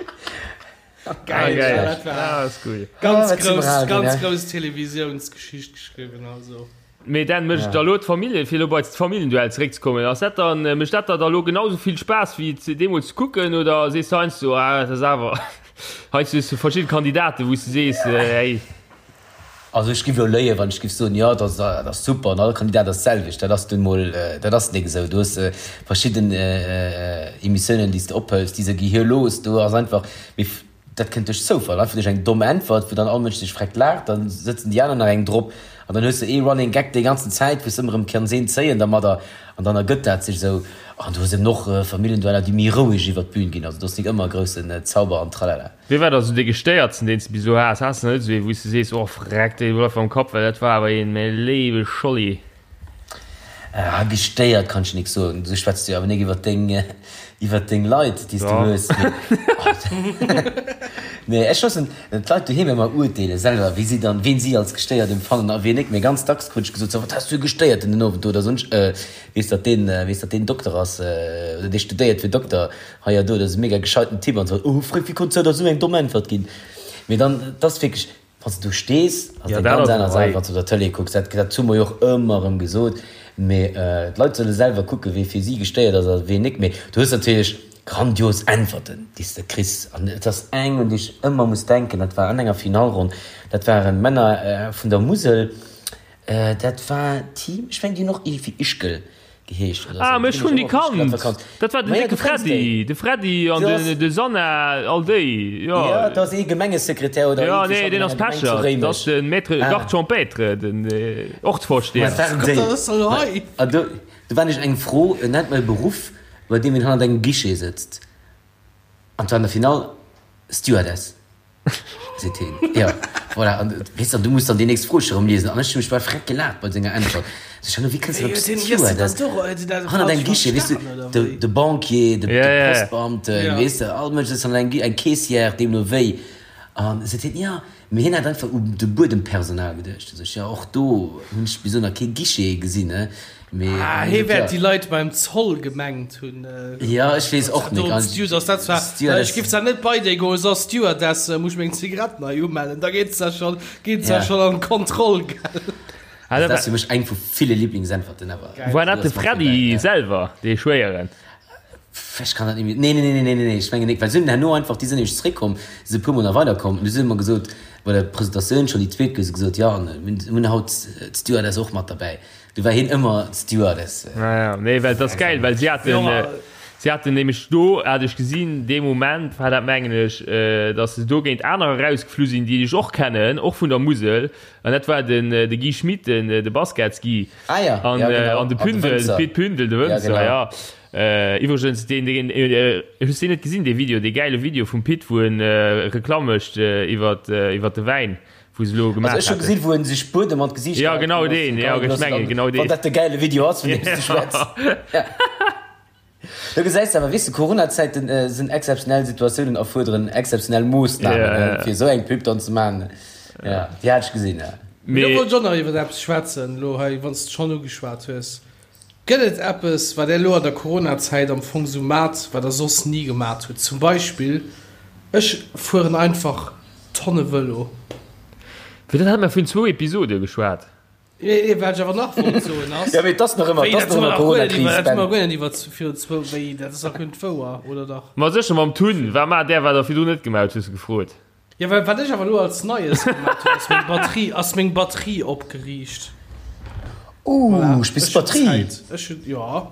Geil, geil. Ja, dat war ah, ist cool. Ganz ah, grouss, ganz grouss Televisiounsgeschicht geschriwwen also. Mee Dan, mécht da lo d'Familljen, fir elo bei d'Familljenduell zeréckzekommen, ass dat dann, mécht dat der da lo genau sou vill Spaass wéi et deemools ze kucken oder sees de heiansdo, ah dat ass awer, heiansdo hues de verschidde Kandidaten, wou s de sees, hey. Also ech giff elo léien, wann ech giff soen, jo dat ass, dat ass super an all Kandidat ass d'selwecht. Dat ass nun mol, dat ass nik esou. Du hues verschidden Emissiounen, déi s de ophëls, déi se gehirlos, do ass einfach, mee Dat kënnt duerch Zoufall, einfach duerch eng domm Äntwert, wou dann all Mënsch sech freckt laacht, dann sëtzen déi aner nach eng drop an dann hues de ee Running Gag déi ganzen Zäit, wou s de ëmmer erëm kanns een zéien dermadder an dann ergëtt dat sech esou. An du hues eben och Familljendueller, déi méi roueg iwwer d'Bün ginn, also do ass nik ëmmer groussen Zauber an Tralala. Wee war da sou dee gestéiertsten, deen s de bis elo has? Has de net esou ee, wou s de sees, oh freck, dee bleift mer am Kapp, well dat war awer een, mäi léiwe Scholli? Ah, gestéiert kann ech nik soen. Du schwätz jo awer nik iwwer deng, iwwer deng Leit, déi s du hues. Mee ech loossen d'Leit doheem ëmmer urteele selwer, wéi si dann, ween si als gestéiert empfannen a ween nik. Mee ganz dacks krut ech gesot, so, wat has du e Gestéierten den Owend do oder soss. Weess, datt deen, weess, datt deen Dokter ass, oder dee studéiert fir Dokter hei a do, dat ass e mega gescheiten Typ an esou. Oh, Freck, wéi konns du der esou eng domm Äntwert ginn? Mee dann, 't ass wierklech, Wann s de do stees, ass et eng ganz aner Saach, wéi wann s de op der Tëlee kucks. Dat, dat hu mer jo och ëmmer erëm gesot. Mee d'Leit solle selwer kucken, wee fir si gestéiert ass a ween nik. Mee du hues natierlech grandios Äntwerten, déi s de kriss. An et ass eng, un déi ech ëmmer muss denken, dat war an enger Finallronn, dat waren Männer vun der Musel, dat war Team, ech mengen, déi hunn och iergendwéi Ischgl geheescht oder Ah, sou. ech hunn déi kannt. Dat war den décke Freddy, de Freddy an de Sanna, all déi, jo. Jo, dat ass ee Gemengesekretär oder Jo, nee, deen ass Pecher. Dat ass de Maître Garde champêtre, den Ortsvorsteher. Dat waren déi. An do, do war nämlech eng Fro, Nennt mer e Beruff, bei deem een hannert engem Guichet sëtzt. An 't war an der Finall Stewardess. Seet heen. Jo, voilà. An, weess de, an du muss dann déi nächst Fro scho rëm liesen. An ech hu mech bal freck gelaacht bei senger Äntwert. Sot ech, Hanno, wéi kënns de op Stewardess? Hannert engem Guichet, weess du, de, de Banquier, de, de Postbeamten, weess de, all Mënsch sëtzt hannert engem Guichet, eng Caissière, deemno wéi. An seet hien, jo, mee hien hat einfach u de Buedempersonal geduecht. Sot ech, jo, och do hunn ech bis elo nach kee Guichet gesinn, ne? Mee, ah, hee wäert déi Leit beim Zoll gemengt hunn. Jo, ech weess och net. Stewardess, dat war, ech giff zwar net bei déi goen, so Stewardess, muss ech meng Zigaretten hei umellen, da geet se schon, geet se schon an d'Kontroll, gell. Also dat ass fir mech eng vu ville Lieblingsäntwerten awer. War dat de Freddy selwer, dee Schwéieren? Ech kann dat net méi, nee, nee, nee, nee, nee, ech mengen net, well se hunn herno einfach, déi sinn nämlech zeréckkomm, si e puermol nach weiderkomm, an du si hu mer gesot, bei der Presentatioun schonn déi zweet, hu se gesot, jo, an mir hunn haut d'Stewardess och mat derbäi. Du war hien ëmmer Stewardess. Ja, ja, nee, well das geil, well si haten, äh, si haten nämlech do, hat ech gesinn, dee Moment war dat mengen ech, äh, dass se do géint anerer rausgeflu sinn, déi ech och kennen, och vun der Musel, an dat war den, äh, de Guy Schmit, den, äh, de Baskets-Guy. Ah ja, an, ja, genau. äh, an de Pündel, de Pit Pündel, de Wënzer, ja, genau. ja. Äh, iwwregens, deen, deen, äh, hues deen net gesinn, dee Video, dee gäile Video vum Pit, wou en äh, Reklamm mécht äh, iwwert, äh, iwwert de Wäin? Wou se elo gemaach Also ech hu gesinn, wou en sech Buedem an d'Gesiicht Ja, genau deen, ja, ech mengen genau deen. Wann dat de gäile Video ass, vun deem s du schwätz. Ja. Do gesäis de awer, weess de, Corona-Zäiten sinn exzeptionell Situatiounen erfuerderen exzeptionell Moossnamen, ja, fir esou eng Pub dann ze maachen. Ja, déi hat ech gesinn, ja. Mee do wollt ech och nach iwwer eppes schwätzen, elo hei, wann s de schonn ugeschwat hues. Gëtt et eppes, wat Där elo an der Coronazäit am Fong sou mat, wat Der soss ni gemat hutt? Zum Beispill, ech fueren einfach Tonne Vëlo. Fir dat hate mer virun zwou Episode geschwat. Nee, wat ech awer nach wollt soen ass. Jo, mee et ass nach ëmmer, et ass nach ëmmer Coronakris, Ben. Dat hu mer guer net iwwer virun zwou, wéi, dat ass nach guer net wouer, oder dach? Ma sécher mam Tun. Wat maacht Där, wat Der virdrun net gemaut hutt, hues de gefrot. Jo, well wat ech awer elo als Neies gemaat hunn, ass meng Batterie, ass meng Batterie opgeriicht. Ooh, Voilà. spills Ech hunn Batterie? Zäit. Ech hunn, jo.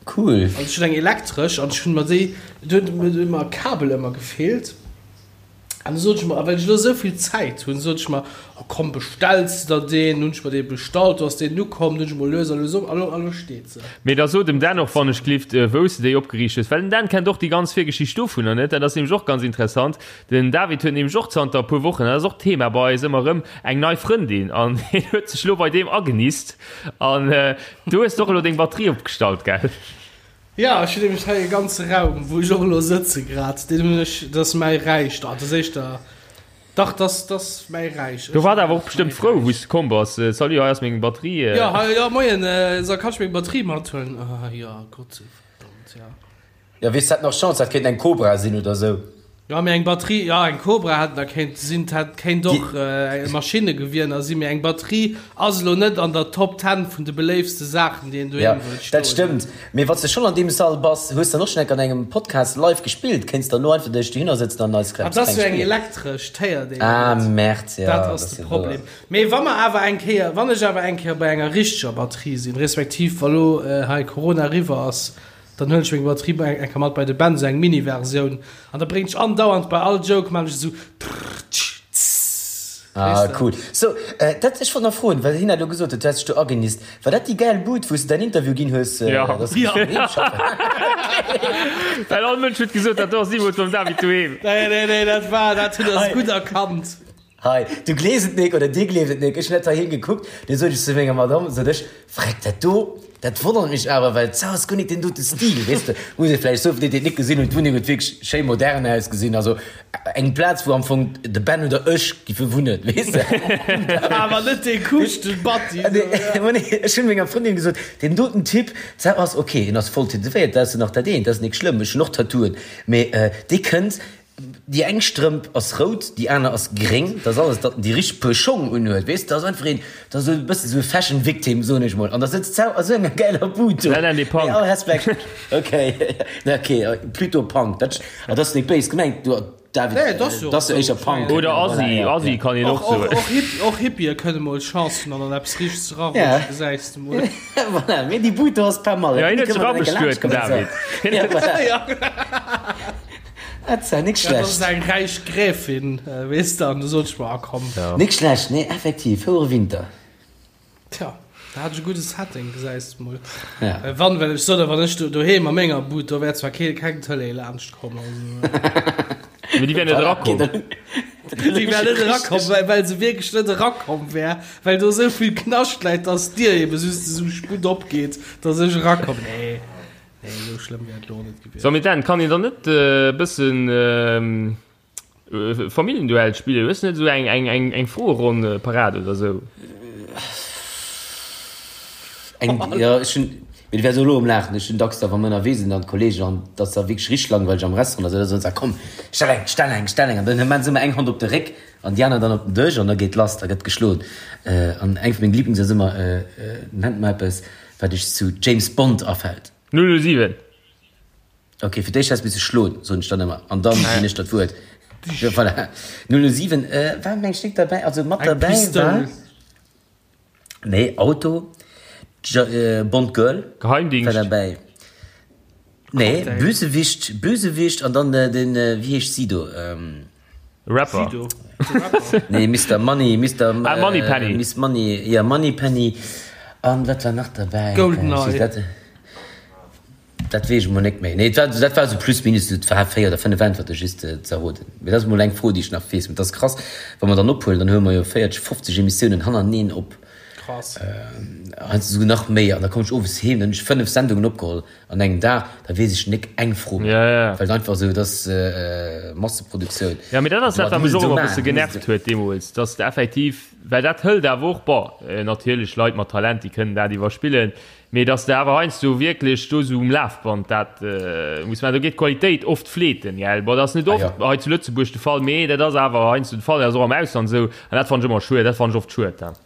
Cool. Also ech hunn eng elektresch an ech hunn mer déi, do huet mir ëmmer e Kabel ëmmer gefeelt. An du sot ech mer, a well ech elo esou vill Zäit hunn, sot ech mer, oh komm, bestells de der deen. Hunn ech mer dee bestallt, do ass deen ukomm, du hunn ech mol lues a lues op, a lo, a lo steet se. Mee da so dem Dan och wann ech glift, wou s de déi opgeriicht hues, well den Dan kennt och déi ganz Virgeschicht dovunner net. Dat ass nämlech och ganz interessant. Den David huet nämlech och zanter e puer Wochen, dat ass och Thema bei eis ëmmer erëm, eng nei Frëndin an hien huet sech elo bei deem agenist an du hues och elo deng Batterie opgestallt, gell? Jo, ech hunn nämlech hei e ganze Raum, wou ech och elo sëtze grad, deen hunn ech, dat ass mäi Räich, dat ass éischter, dach, dat ass, dat ass mäi Räich. Do war der awer och bestëmmt frou, wou s de komm bass. Salut, hei ass meng Batterie. Jo, hei, jo, moien, so, kann ech meng Batterie mathuelen? Ah jo, Gott, verdammt, jo. Jo, weess, hat nach Chance, dat kéint eng Cobra sinn oder sou. Jo, mee eng Batterie, jo, eng Cobra hätt da kéint sinn, hätt kéint och e Maschinnegewier sinn, mee eng Batterie ass elo net an der Top Ten vun de beléiftste Saachen, déi een doheem wëllt stoen hunn. Dat stëmmt, mee wann s de schonn an deem Sall bass, hues dann och schonn enk an engem Podcast live gespillt, kéints dann elo einfach dech dohinner sëtzen an eis kleng spillen. Dat ass jo eng elektresch, d'héiert een Ah, net. Merde, jo, Dat ass de Problem. Mee wa mer awer eng Kéier, wann ech awer eng Kéier bei enger richteger Batterie sinn, respektiv wa lo hei Corona eriwwer ass, Dann huelen ech meng Batterie bei eng Kéier mat bei de Ben, sou eng Mini-Versioun, an da bréngt ech andauernd bei all Joke maan ech esou trrrtsch tss. Ah cool. So, dat, ech wollt nach froen, well hien hat elo gesot huet, du häss dech do agenisst. War dat déi gäil Bud, wou s de däin Interview ginn hues, dass du dech doheem schaffen? Well all Mënsch huet gesot, dat do ass nimools mam David doheem. Nee, nee, nee, dat war, dat huet ass gutt erkannt. Hei, du gleefs et nik oder dir gleeft et nik, ech hunn dat heiheem gekuckt, du sot ech zu menger Madame, sot ech, Freck, dat do, dat wonnert mech awer, well d'Sau ass guer nik deen dote Stil, weess de. Muss ee vläicht soen, fir déi, déi et nik gesinn hunn, d'Wunneng huet wierklech schéi modern ausgesinn, also eng Plaz, wou am Fong de Ben oder ech giffe wunnen, weess de. Awer net dee kuuschten Batti. Ech hunn menger Frëndin gesot, deen doten Typ, d'Sau ass ok, en ass voll tätowéiert, dat ass jo nach dat eent, dat ass nik schlëmm, ech hunn och Tattooen, mee dee kënnt, Déi eng Strëmp ass rout, déi aner ass gréng. Dat ass alles, datt en déi richteg Puer Schong unhuet, weess de. Dat ass einfach een, dat ass esou e bëssen esou e Fashion Victim, soen ech mol. An da sëtzt d'Sau a sou enger gäiler Bud do. Nein, nein, dee Punk. Mee all Respekt. Ok, ok, plutôt Punk. Dat, dat ass net béis gemengt, du David, Nee, dat ass jo dat ass jo esou. éischer Punk. Oder Voilà, Assi, ja, Assi ja. kann een och Och, och, soen. och, Hip, och Hippië kënne mol Chance hunn an an eppes Richteg Ja. erarutschen, gesäis de mol. Voilà, mee déi Bud do ass pas mal. Ja, hien Déi huet kënne sech mer dann enke abestuet, den laanscht kommen, David. so. Ja, voilà. Ja. Dat war nik Ja, dat ass schlecht. eng räich Gräfin, weess de, an du sot ech mer, ah komm. Ja. Nik schlecht, nee, effektiv, fouere Winter. Tja, da hat ech e gudde Setting, gesäis de mol. Ja. Wann, well ech sot, wann ech do doheem a menger Bud, do wär zwar kee, keng Tëlee laanscht komm, also. Mee déi wär net Voilà, erakomm. okay, dann, Déi wär net erakomm, well, well se wierklech net erakomm wär, well do esou vill Knascht läit, dass d'Dier ebe just esou sputt opgeet, dass ech erakomm. Nee. Nee, esou schlëmm wär et elo och net gewiescht. So, mee Dan, kann een dann net e bëssen Familljenduell spillen? Hues du net esou eng, eng, eng, eng Froeronn parat oder esou? Eng, jo, ech hunn, mee du wäers och elo um Laachen, ech hunn dacks da, wa mer ënnerwee sinn, dann d'Kollegen, an et ass da wierklech richteg langweileg am Restaurant, da soen se, komm, stell eng, stell eng, stell eng, an dann hu se ëmmer eng Hand op de Réck an déi aner dann op den Dësch an da geet lass, da gëtt geschloen. An eng vu menge Lieblings ass ëmmer, Nennt mer eppes, Wat iech zu James Bond afält. 007. Ok, fir d'éischt häss misse schloen, soen ech dann ëmmer, an dann ginn ech der d'Wuert. Jo, voilà. 007, war meng ech nik derbäi, also mat Eng derbäi war, Pistoul. nee, Auto, Bond Girl war Geheimdingscht. derbäi, nee, Cocktail. Bösewicht, Bösewicht an dann den, wéi heescht Sido? Rapper. Sido, de Rapper. Nee, Mister Money, Mister Ah, Moneypenny. Miss Money, ja, Moneypenny. An wat war nach derbäi? Goldeneye. Dat, dat weess ech mol net méi. Nee, dat war, dat war sou plus minus, et war 4 oder 5 Äntwerte just ze erroden. Mee dat ass mol eng Fro, déi ech nach weess. Mee dat ass krass, wa mer dann ophuelen, dann huele mer jo 40, 50 Emissiounen hannerteneen op. Krass. Heiansdo souguer nach méi. An da kommen ech owes heem, dann hunn ech 5 Sendungen opgeholl. An engem Dag, da weess ech nik eng Fro méi. Ja, ja. Well et einfach esou, et ass Masseproduktioun. Ja, mee dat ass dat, Du wat mech muss et och esou ëmmer e maachen, bësse du muss genervt et. huet deemools, dass de effektiv, well dat hëlt awer och, bon, natierlech Leit mat Talent, déi kënnen dat iwwerspillen, mee dass de awer heiansdo wierklech do esou um Lafband dat muss maachen, do geet d'Qualitéit oft fleeten, gell. Bon, dat ass net Ah oft jo. hei zu Lëtzebuerg de Fall, mee dat ass awer heiansdo de Fall, dat ass och am Ausland esou, an dat fannen ech ëmmer schued, dat fannen ech oft schued dann.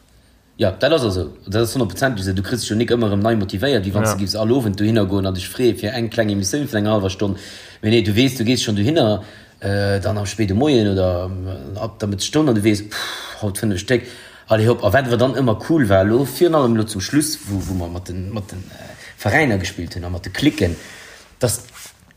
Jo, dat ass och esou. Dat ass honnertprozentlech esou. Du kriss dech jo nik ëmmer erëm nei motivéiert, wéi wann s de giffs all Owend dohinner goen an dech freeë fir eng kleng Emissioun vun enger hallwer Stonn. Mee nee, du weess, du gees schonn dohinner, dann am spéide Moien oder ab der Mëttesstonn an du weess, Puh, haut 5 Stéck, allez hopp. A wat awer dann ëmmer cool war elo, virun allem elo zum Schluss, wou wou mer mat de mat de Veräiner gespillt hunn a mat de Cliquen, dass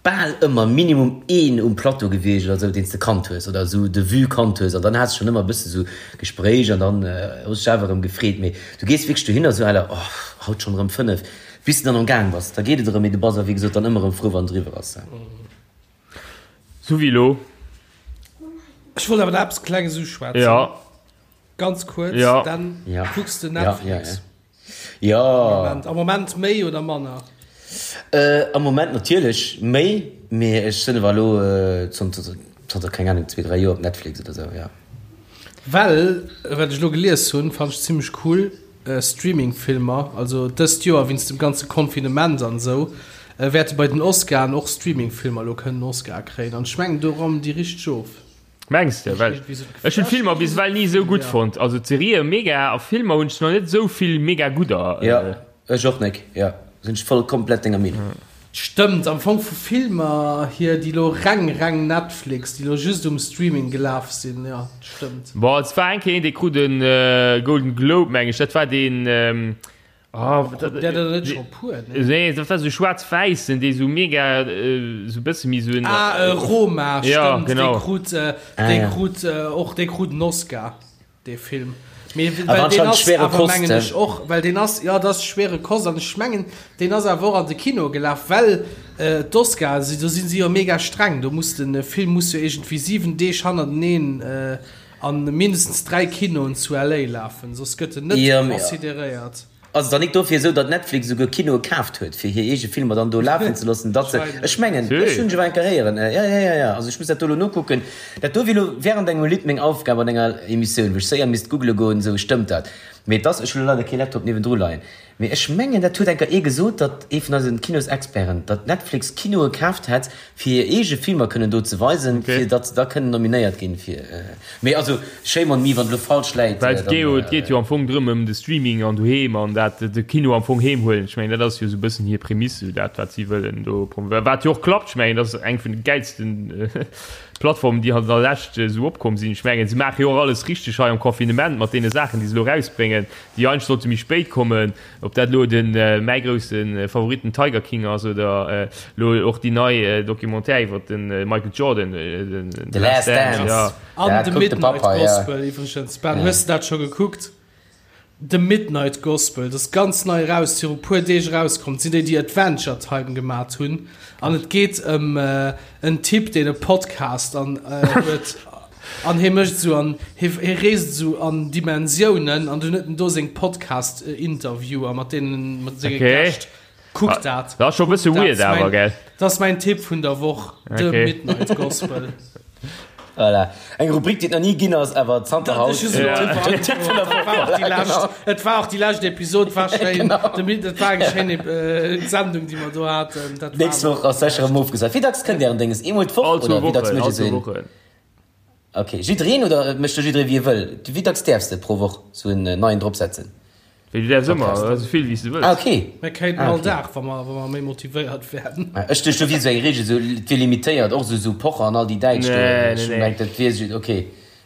bal ëmmer minimum een um Plateau gewiescht oder sou, deen s de kannt hues oder sou de vue kannt hues an dann has de schonn ëmmer e bësse sou Gespréich an dann hues dech awer erëm gefreet. Mee du gees wierklech dohinner sou à la oh, haut schonn erëm 5, bis de dann am Gaang bass, da geet et erëm, mee du bass awer wéi gesot dann ëmmer erëm frou wann et eriwwer ass. Sou wéi elo. Ech wollt awer nach eppes Klenges uschwätzen. Ja. Ganz kuerz, Ja. dann Ja. kucks de Ja, ja, Netflix. ja. Jo. Am Moment, am Moment méi oder manner? Am Moment natierlech méi, mee ech sinn awer elo zanter, zanter keng Ahnung, zwee, dräi Joer op Netflix oder sou, jo. Well, wat ech elo gelies hunn, fand ech zimmlech cool, Streaming-Filmer, also dëst Joer wéinst dem ganze Confinement an esou. Wäerte bei den Oscaren och Streaming-Filmer elo kënnen Oscar kréien. An ech mengen, do rammen déi richteg of. Mengs de? Well ech hunn d'Filmer bis ewell ni esou gutt fonnt. Also d'Serië mega a Filmer hunn ech nach net esou vill mega gudder. Jo, ech och nek. Jo, sinn ech voll komplett denger Meenung. Stëmmt, am Fong vu Filmer hier, déi lo reng reng Netflix, déi lo just um Streaming gelaf sinn, jo, stëmmt. Bon, et war eng Kéier een, dee krut e Golden Globe, meng ech, dat war deen, Oh, dat, der der net schon puer ne? Nee, dat war so schwarz-wäissen, dee so mega äh, so bësse méi so en. Ah, äh, Roma, ja, stimmt, genau. Dee krut, äh, ah, dee ja. krut äh, och dee krut en Oscar, dee Film. Mee, well deen ass schwere awer, Kost, mengen ech och, well deen ass, ja, dat ass schwere Kost an ech mengen, deen ass awer och an de Kino gelaf, well äh, d'Oscar, si, do sinn si jo mega streng, do muss den Film muss jo iergendwéi 7 Deeg hannerteneen äh, An mindestens 3 Kinoen zu LA lafen, soss gëtt en net consideréiert. Ass et dann nik dofir esou, datt Netflix esouguer Kinoe kaaft huet, fir hir eege Filmer dann do lafen ze loossen, datt se, ech mengen, ech hunn ech awer eng Kéier héieren, jo, jo, jo, jo, also ech muss dat do elo nokucken, dat do wier elo während engem Lidd meng Aufgab an enger Emissioun, wou ech séier misst googele goen, esou stëmmt dat, mee et ass, ech hunn elo leider kee Laptop niewendru leien, Mee ech mengen, dat huet enker ee gesot, datt ee vun eisen Kinosexperten, datt Netflix Kinoe kaaft hätt, fir hir eege Filmer kënnen do ze weisen, fir datt se da kënnen nominéiert ginn fir. Mee also, shame on me, wann et elo falsch läit. Well et geet jo, et geet jo am Fong drëm, ëm de Streaming an doheem an dat de Kino am Fong heem huelen. Ech mengen, dat ass jo esou e bëssen hir Prämisse, esou dat, wat si wëllen do promouvéieren. Wat jo och klappt. Ech mengen, dat ass eng vun de gäilsten Plattformen, déi an der Lescht esou opkomm sinn. Ech mengen, se maache jo och alles richteg hei am Confinement mat deene Saachen, déi se elo erausbréngen. Déi eigentlech sollte méi spéit kommen, ob dat elo de mäi grousse Favorit den Tiger King ass oder elo och déi nei Documentaire iwwer de Michael Jordan, The Last Dance. Ja. An The Midnight Gospel iwwregens, Ben, hues de dat scho gekuckt? The Midnight Gospel, dat ass ganz nei eraus, viru puer Deeg erauskomm. Dat sinn déi, déi Adventure Time gemat hunn. An et geet ëm en Typ, deen e Podcast an huet. An hie mécht esou an hie hie reest esou an Dimensiounen an dunn huet en do seng Podcast-Interviewer mat deenen mat senge Okay. Gäscht. Kuckt dat. Dat ass scho e bësse Kuckt dat. weird Ass awer, mäin, gell? dat ass mäin Tipp vun der Woch, The Okay. Midnight Gospel. Voilà. Eng Rubrik, déi et nach ni ginn ass, awer zanter Dat haut. ech hu Ja. den Tipp vun der Woch. War och déi lescht, et war och déi lescht Episod, war schéin. Genau. De Mid, et war eng schéin äh, Sendung, déi mer do haten. Dat war Nächst Woch ass sécher erëm ofgesat. Wéi dacks kënnt Ären Dénges? Eemol d'Woch All zwou oder wéi dacks Wochen, mécht all Dir zwou esou een? Wochen. Ok, jiddereen oder mécht do jidderee wéi e wëll? Wéi dacks däerfs de pro Woch sou en neien drop setzen? Wéi du däerfs ëmmer, esou vill wéi s de wëlls. Ah ok. Mir kéinten Ah all ok. Dag, wa mer, wa mer méi motivéiert wären. Ech duecht do wier sou eng Regel, sou et wier limitéiert, och sou sou Pocher an all déi Däitsch do. Nee, Ech nee, nee. mengt dat wier sou, ok.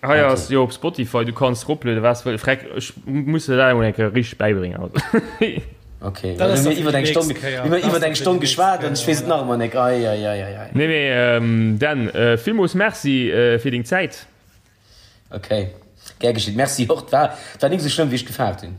Hei Ok. ass jo op Spotify, du kanns eroplueden wat s de wëlls. Freck, ech muss der dat emol eng Kéier richteg bäibréngen, also. Ok, Dat well ass hu da mir fir iwwer déi eng Stonn, nächst Kéier. hu mir Dat ass iwwer da eng fir Stonn déi nächst geschwat an Kéier, ech weess et voilà. nach ëmmer nek. Ei, ei, ei, ei, ei. Nee, mee Dan, villmools Merci fir deng Zäit. Ok, gär geschitt. Merci och. Et war, et war nik esou schlëmm wéi ech gefaart hunn.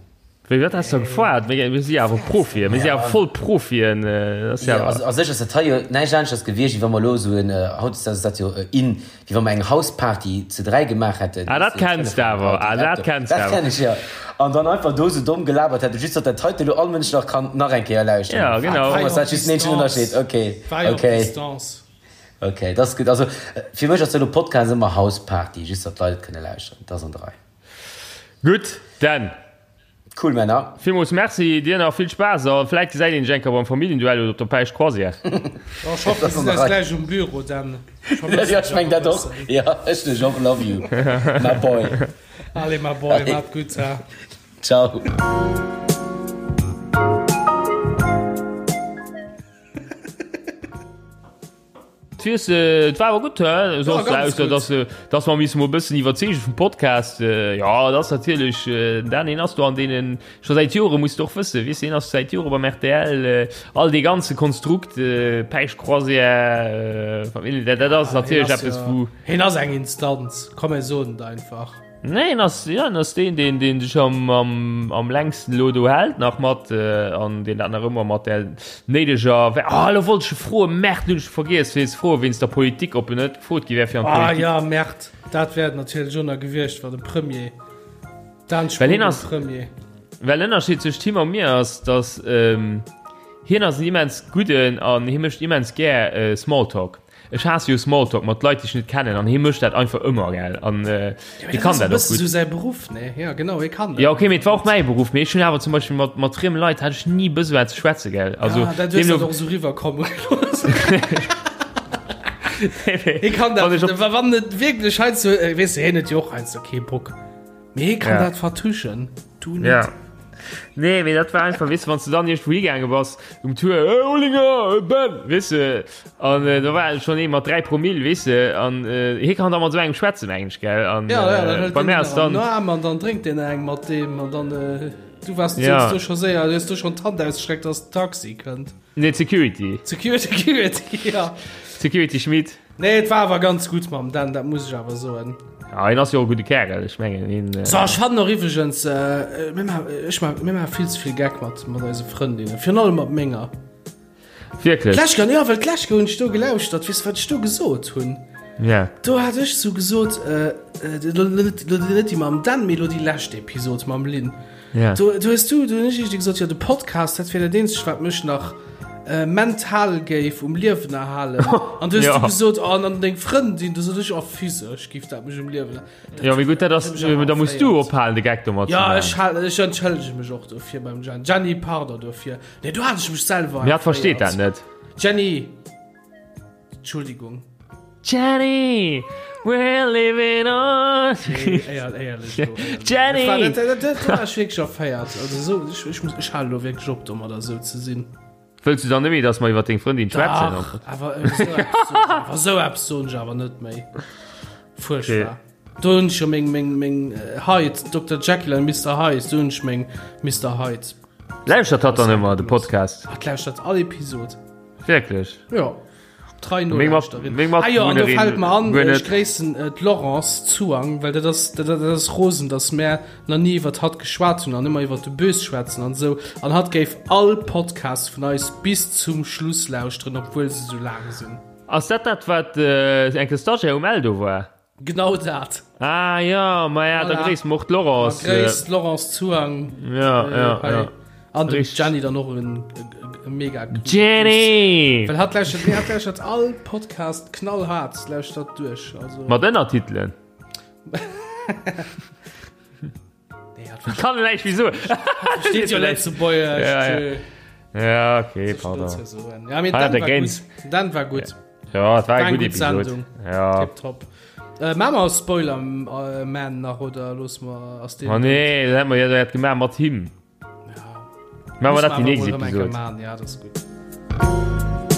Wéi, wat has de gefaart? Mir, mir si awer Profien, mir si awer voll Profien. Dat ass Jo, jo. also a sech ass dat hei jo näischt aneschters gewiescht, wéi wa mer elo esou en, hautdesdaags ass dat jo in, wéi wa mer eng Hausparty zu 3 gemaach hätten, Ah, weess dat de, kenns de Telefon, awer, Auto, ah, dat Laptop. kenns de Dat awer. kenn ech, jo. An dann einfach do esou domm gelabert hätten, just datt dat heite elo all Mënsch nach kann nach eng Kéier lauschteren. Ja, genau. Am Fong ass dat just den eenzegen Ënnerscheed. Ok, ok. Ok, dat ass gutt. Also fir mech ass elo Podcast ëmmer Hausparty, just datt d'Leit et kënne lauschteren. Dat ass an der Rei. Gutt, Dan. Cool Männer. Villmools Merci, dir nach vill Spaass a vläit gesäit een sech eng Kéier beim Familljenduell oder op der Päischt Croisière. Oh, ech hoffen, mir gesinn eis gläich um Büro, Dan. Ech vermëssen Jo, ech dech meng awer e dat och. bëssen. Jo, ech dech och. Love you, my boy. Allez, my boy, maat gutt, ha. Ciao. Weess, et war awer gutt, hä? Soss, Ja, ganz ausser gutt. dass, dass mer missen mol e bëssen iwwerzeege vum Podcast. Jo, dat ass natierlech, Dan, hien ass do an deenen, scho säit Jore, muss de och wëssen, weess de, hien ass säit Jore beim rtl, all dee ganze Konstrukt, Päischt-Croisière, Familljen, dat, dat ass Hien natierlech ass eppes, jo, wou. hien ass eng Instanz, komm mir soen et einfach. Nee, en ass, ja, en ass deen, deen, deen sech am, am, am längsten elo do hält nach mat äh, an deen dat nach ëmmer mat der néideger. Ah, elo wollt ech e froen, Merde, hunn ech vergiess fir ze froen wéinst der Politik, ob en net gefrot gi wär fir an Ah d'Politik. ja, Merde, dat wär et natierlech och nach gewiescht, wa de Premier, Dan Well hien Spogen ass, Premier. well den Ënnerscheed zwëscht him a mir ass, datt ähm, hien ass en immens gudden an hie mécht immens gär äh, Smalltalk. Ech haasse jo Smalltalk mat Leit, déi ech net kennen, an hie mécht dat einfach ëmmer, gell? An äh, hie kann dat och gutt. Esou säi Beruff, ne? Ja, genau, hie kann dat. Ja, okay, mee et war och mäi Beruff, mee ech hunn awer zum Beispill mat, mat frieme Leit hat ech ni Besoin ze schwätzen, gell? Also, ah, dat hues du och esou riwwerkomme gelooss. Hie kann dat, wann et wierklech heiansdo, weess de, hien huet jo och heiansdo kee Bock. Mee hie kann Ja. dat vertuschen, du net. Ja. Nee, mee dat war einfach, weess de, wann s du dann iergendwou higaange bass um Tour, Hey Olinger, hey Ben, weess de, an äh, da war schonn ee mat 3 Promille, weess de, an äh, hie kann da mat esou engem schwätzen eigentlech, gell, an Ja, ja, dann äh, hëlt bei deen mär den ass dann, am Arm an dann drénkt deen eng mat deem an dann äh, du warst Ja. du scho séier, du hues du schon d'Hand ausgestreckt, dass den Taxi kënnt. nee, d'Security, Security, Security, ja. Security Schmit. Nee, et war awer ganz gutt mam Dan, dat muss ech awer soen. Ja, hien ass jo och e gudde Kärel, ech mengen hien. So, ech fannen och iwwregens, äh, mir ma, ech ma, mir maache vill ze vill Geck mat, mat eise Frëndinnen, virun allem mat menger. Wierklech? D'lescht Kéier, jo, well d'lescht Kéier hunn ech do gelauschtert, weess de, wat ech do gesot hunn? Ja. Do hat ech sou gesot, äh, lo net, lo net déi mam Dan, mee lo déi lescht Episod mam Lynn. Ja. Do, do hues du, do hunn ech iergendwéi gesot, jo, de Podcast, dat wier dat eenzegt, wat mech nach äh, mental géif um Liewen erhalen. An du hues Ja. du gesot, oh, an dann deng Frëndin, du sot ech, oh, physesch géif dat mech um Liewen Dat Ja, mee gutt, dat ass, huet mech awer da muss du erféiert. ophalen, de Geck domat ze Ja, maachen. ech hal, ech entschëllege mech och dofir beim Jenny. Jenny, pardon dofir. Nee, do hat ech mech selwer Mee hatt versteet dat erféiert. net. Jenny! Entschuldigung. Jenny, we're living on. Nee, éier, éierlech elo, éierlech. Jenny! Dat war, dat, dat, dat war ech wierklech erféiert. Also esou, ech, ech muss, ech halen elo wierklech op domadder esou ze sinn. Wëlls du dann net méi, dass mer iwwer deng Frëndin schwätzen? Dach, awer esou eppes soen ech awer, esou eppes soen ech awer net méi. Fuerchtbar. Okay. Do hunn ech jo meng, meng, meng Hyde, Dokter Jekyll and Mister Hyde, do hunn ech meng Mister Hyde. Lauschtert hatt dann ëmmer de Podcast? Hatt lauschtert all Episod. Wierklech? Jo. Trei Meng Mat- Nolauschterin. meng Ah jo, an do Matbewunnerin fällt mer an, guer ech net. gréissen äh, d'Laurence Zuang, well dat ass, dat, dat ass rosen, dass mär nach ni iwwert hatt geschwat hunn an ëmmer iwwert de Bös schwätzen an esou. An hatt géif all Podcast vun eis bis zum Schluss lauschteren, obwuel se sou laang sinn. Ass dat dat, wat äh, enke Stagiaire um Eldo war? Genau dat. Ah ja, ma ja, da Voilà. gréiss mer och d'Laurence. Ma gréiss d'Laurence Zuang. Ja, ja, hei. ja. An dem Richtig. Jenny dann och en e mega gudde Jenny! Gruss. Well hatt lauschtert, nee, hatt lauschtert all Podcast knallhart, lauschtert duerch. Also, Mat Ënnertitelen. nee, hatt Kann en näischt méi soen. versteet jo Lëtzebuergesch. Ja, ja. tschö. Ja, okay, Soll ich pardon. dazu soen? Ja, mee Ah, Dan der war Gaines. gutt. Dan war gutt. Ja, et war War eng eng gutt gutt Episod. Sendung. Ja. Tipptopp. Äh, maa mer Spoiler äh, Man nach oder looss mer ass deen Oh nee, dat hätt mer jo dat gemaach mat him. Ja. Maache mer dat déi Muss nächst mer awer mol erëm eng Kéier Episod. maan, Ja, dat ass gutt.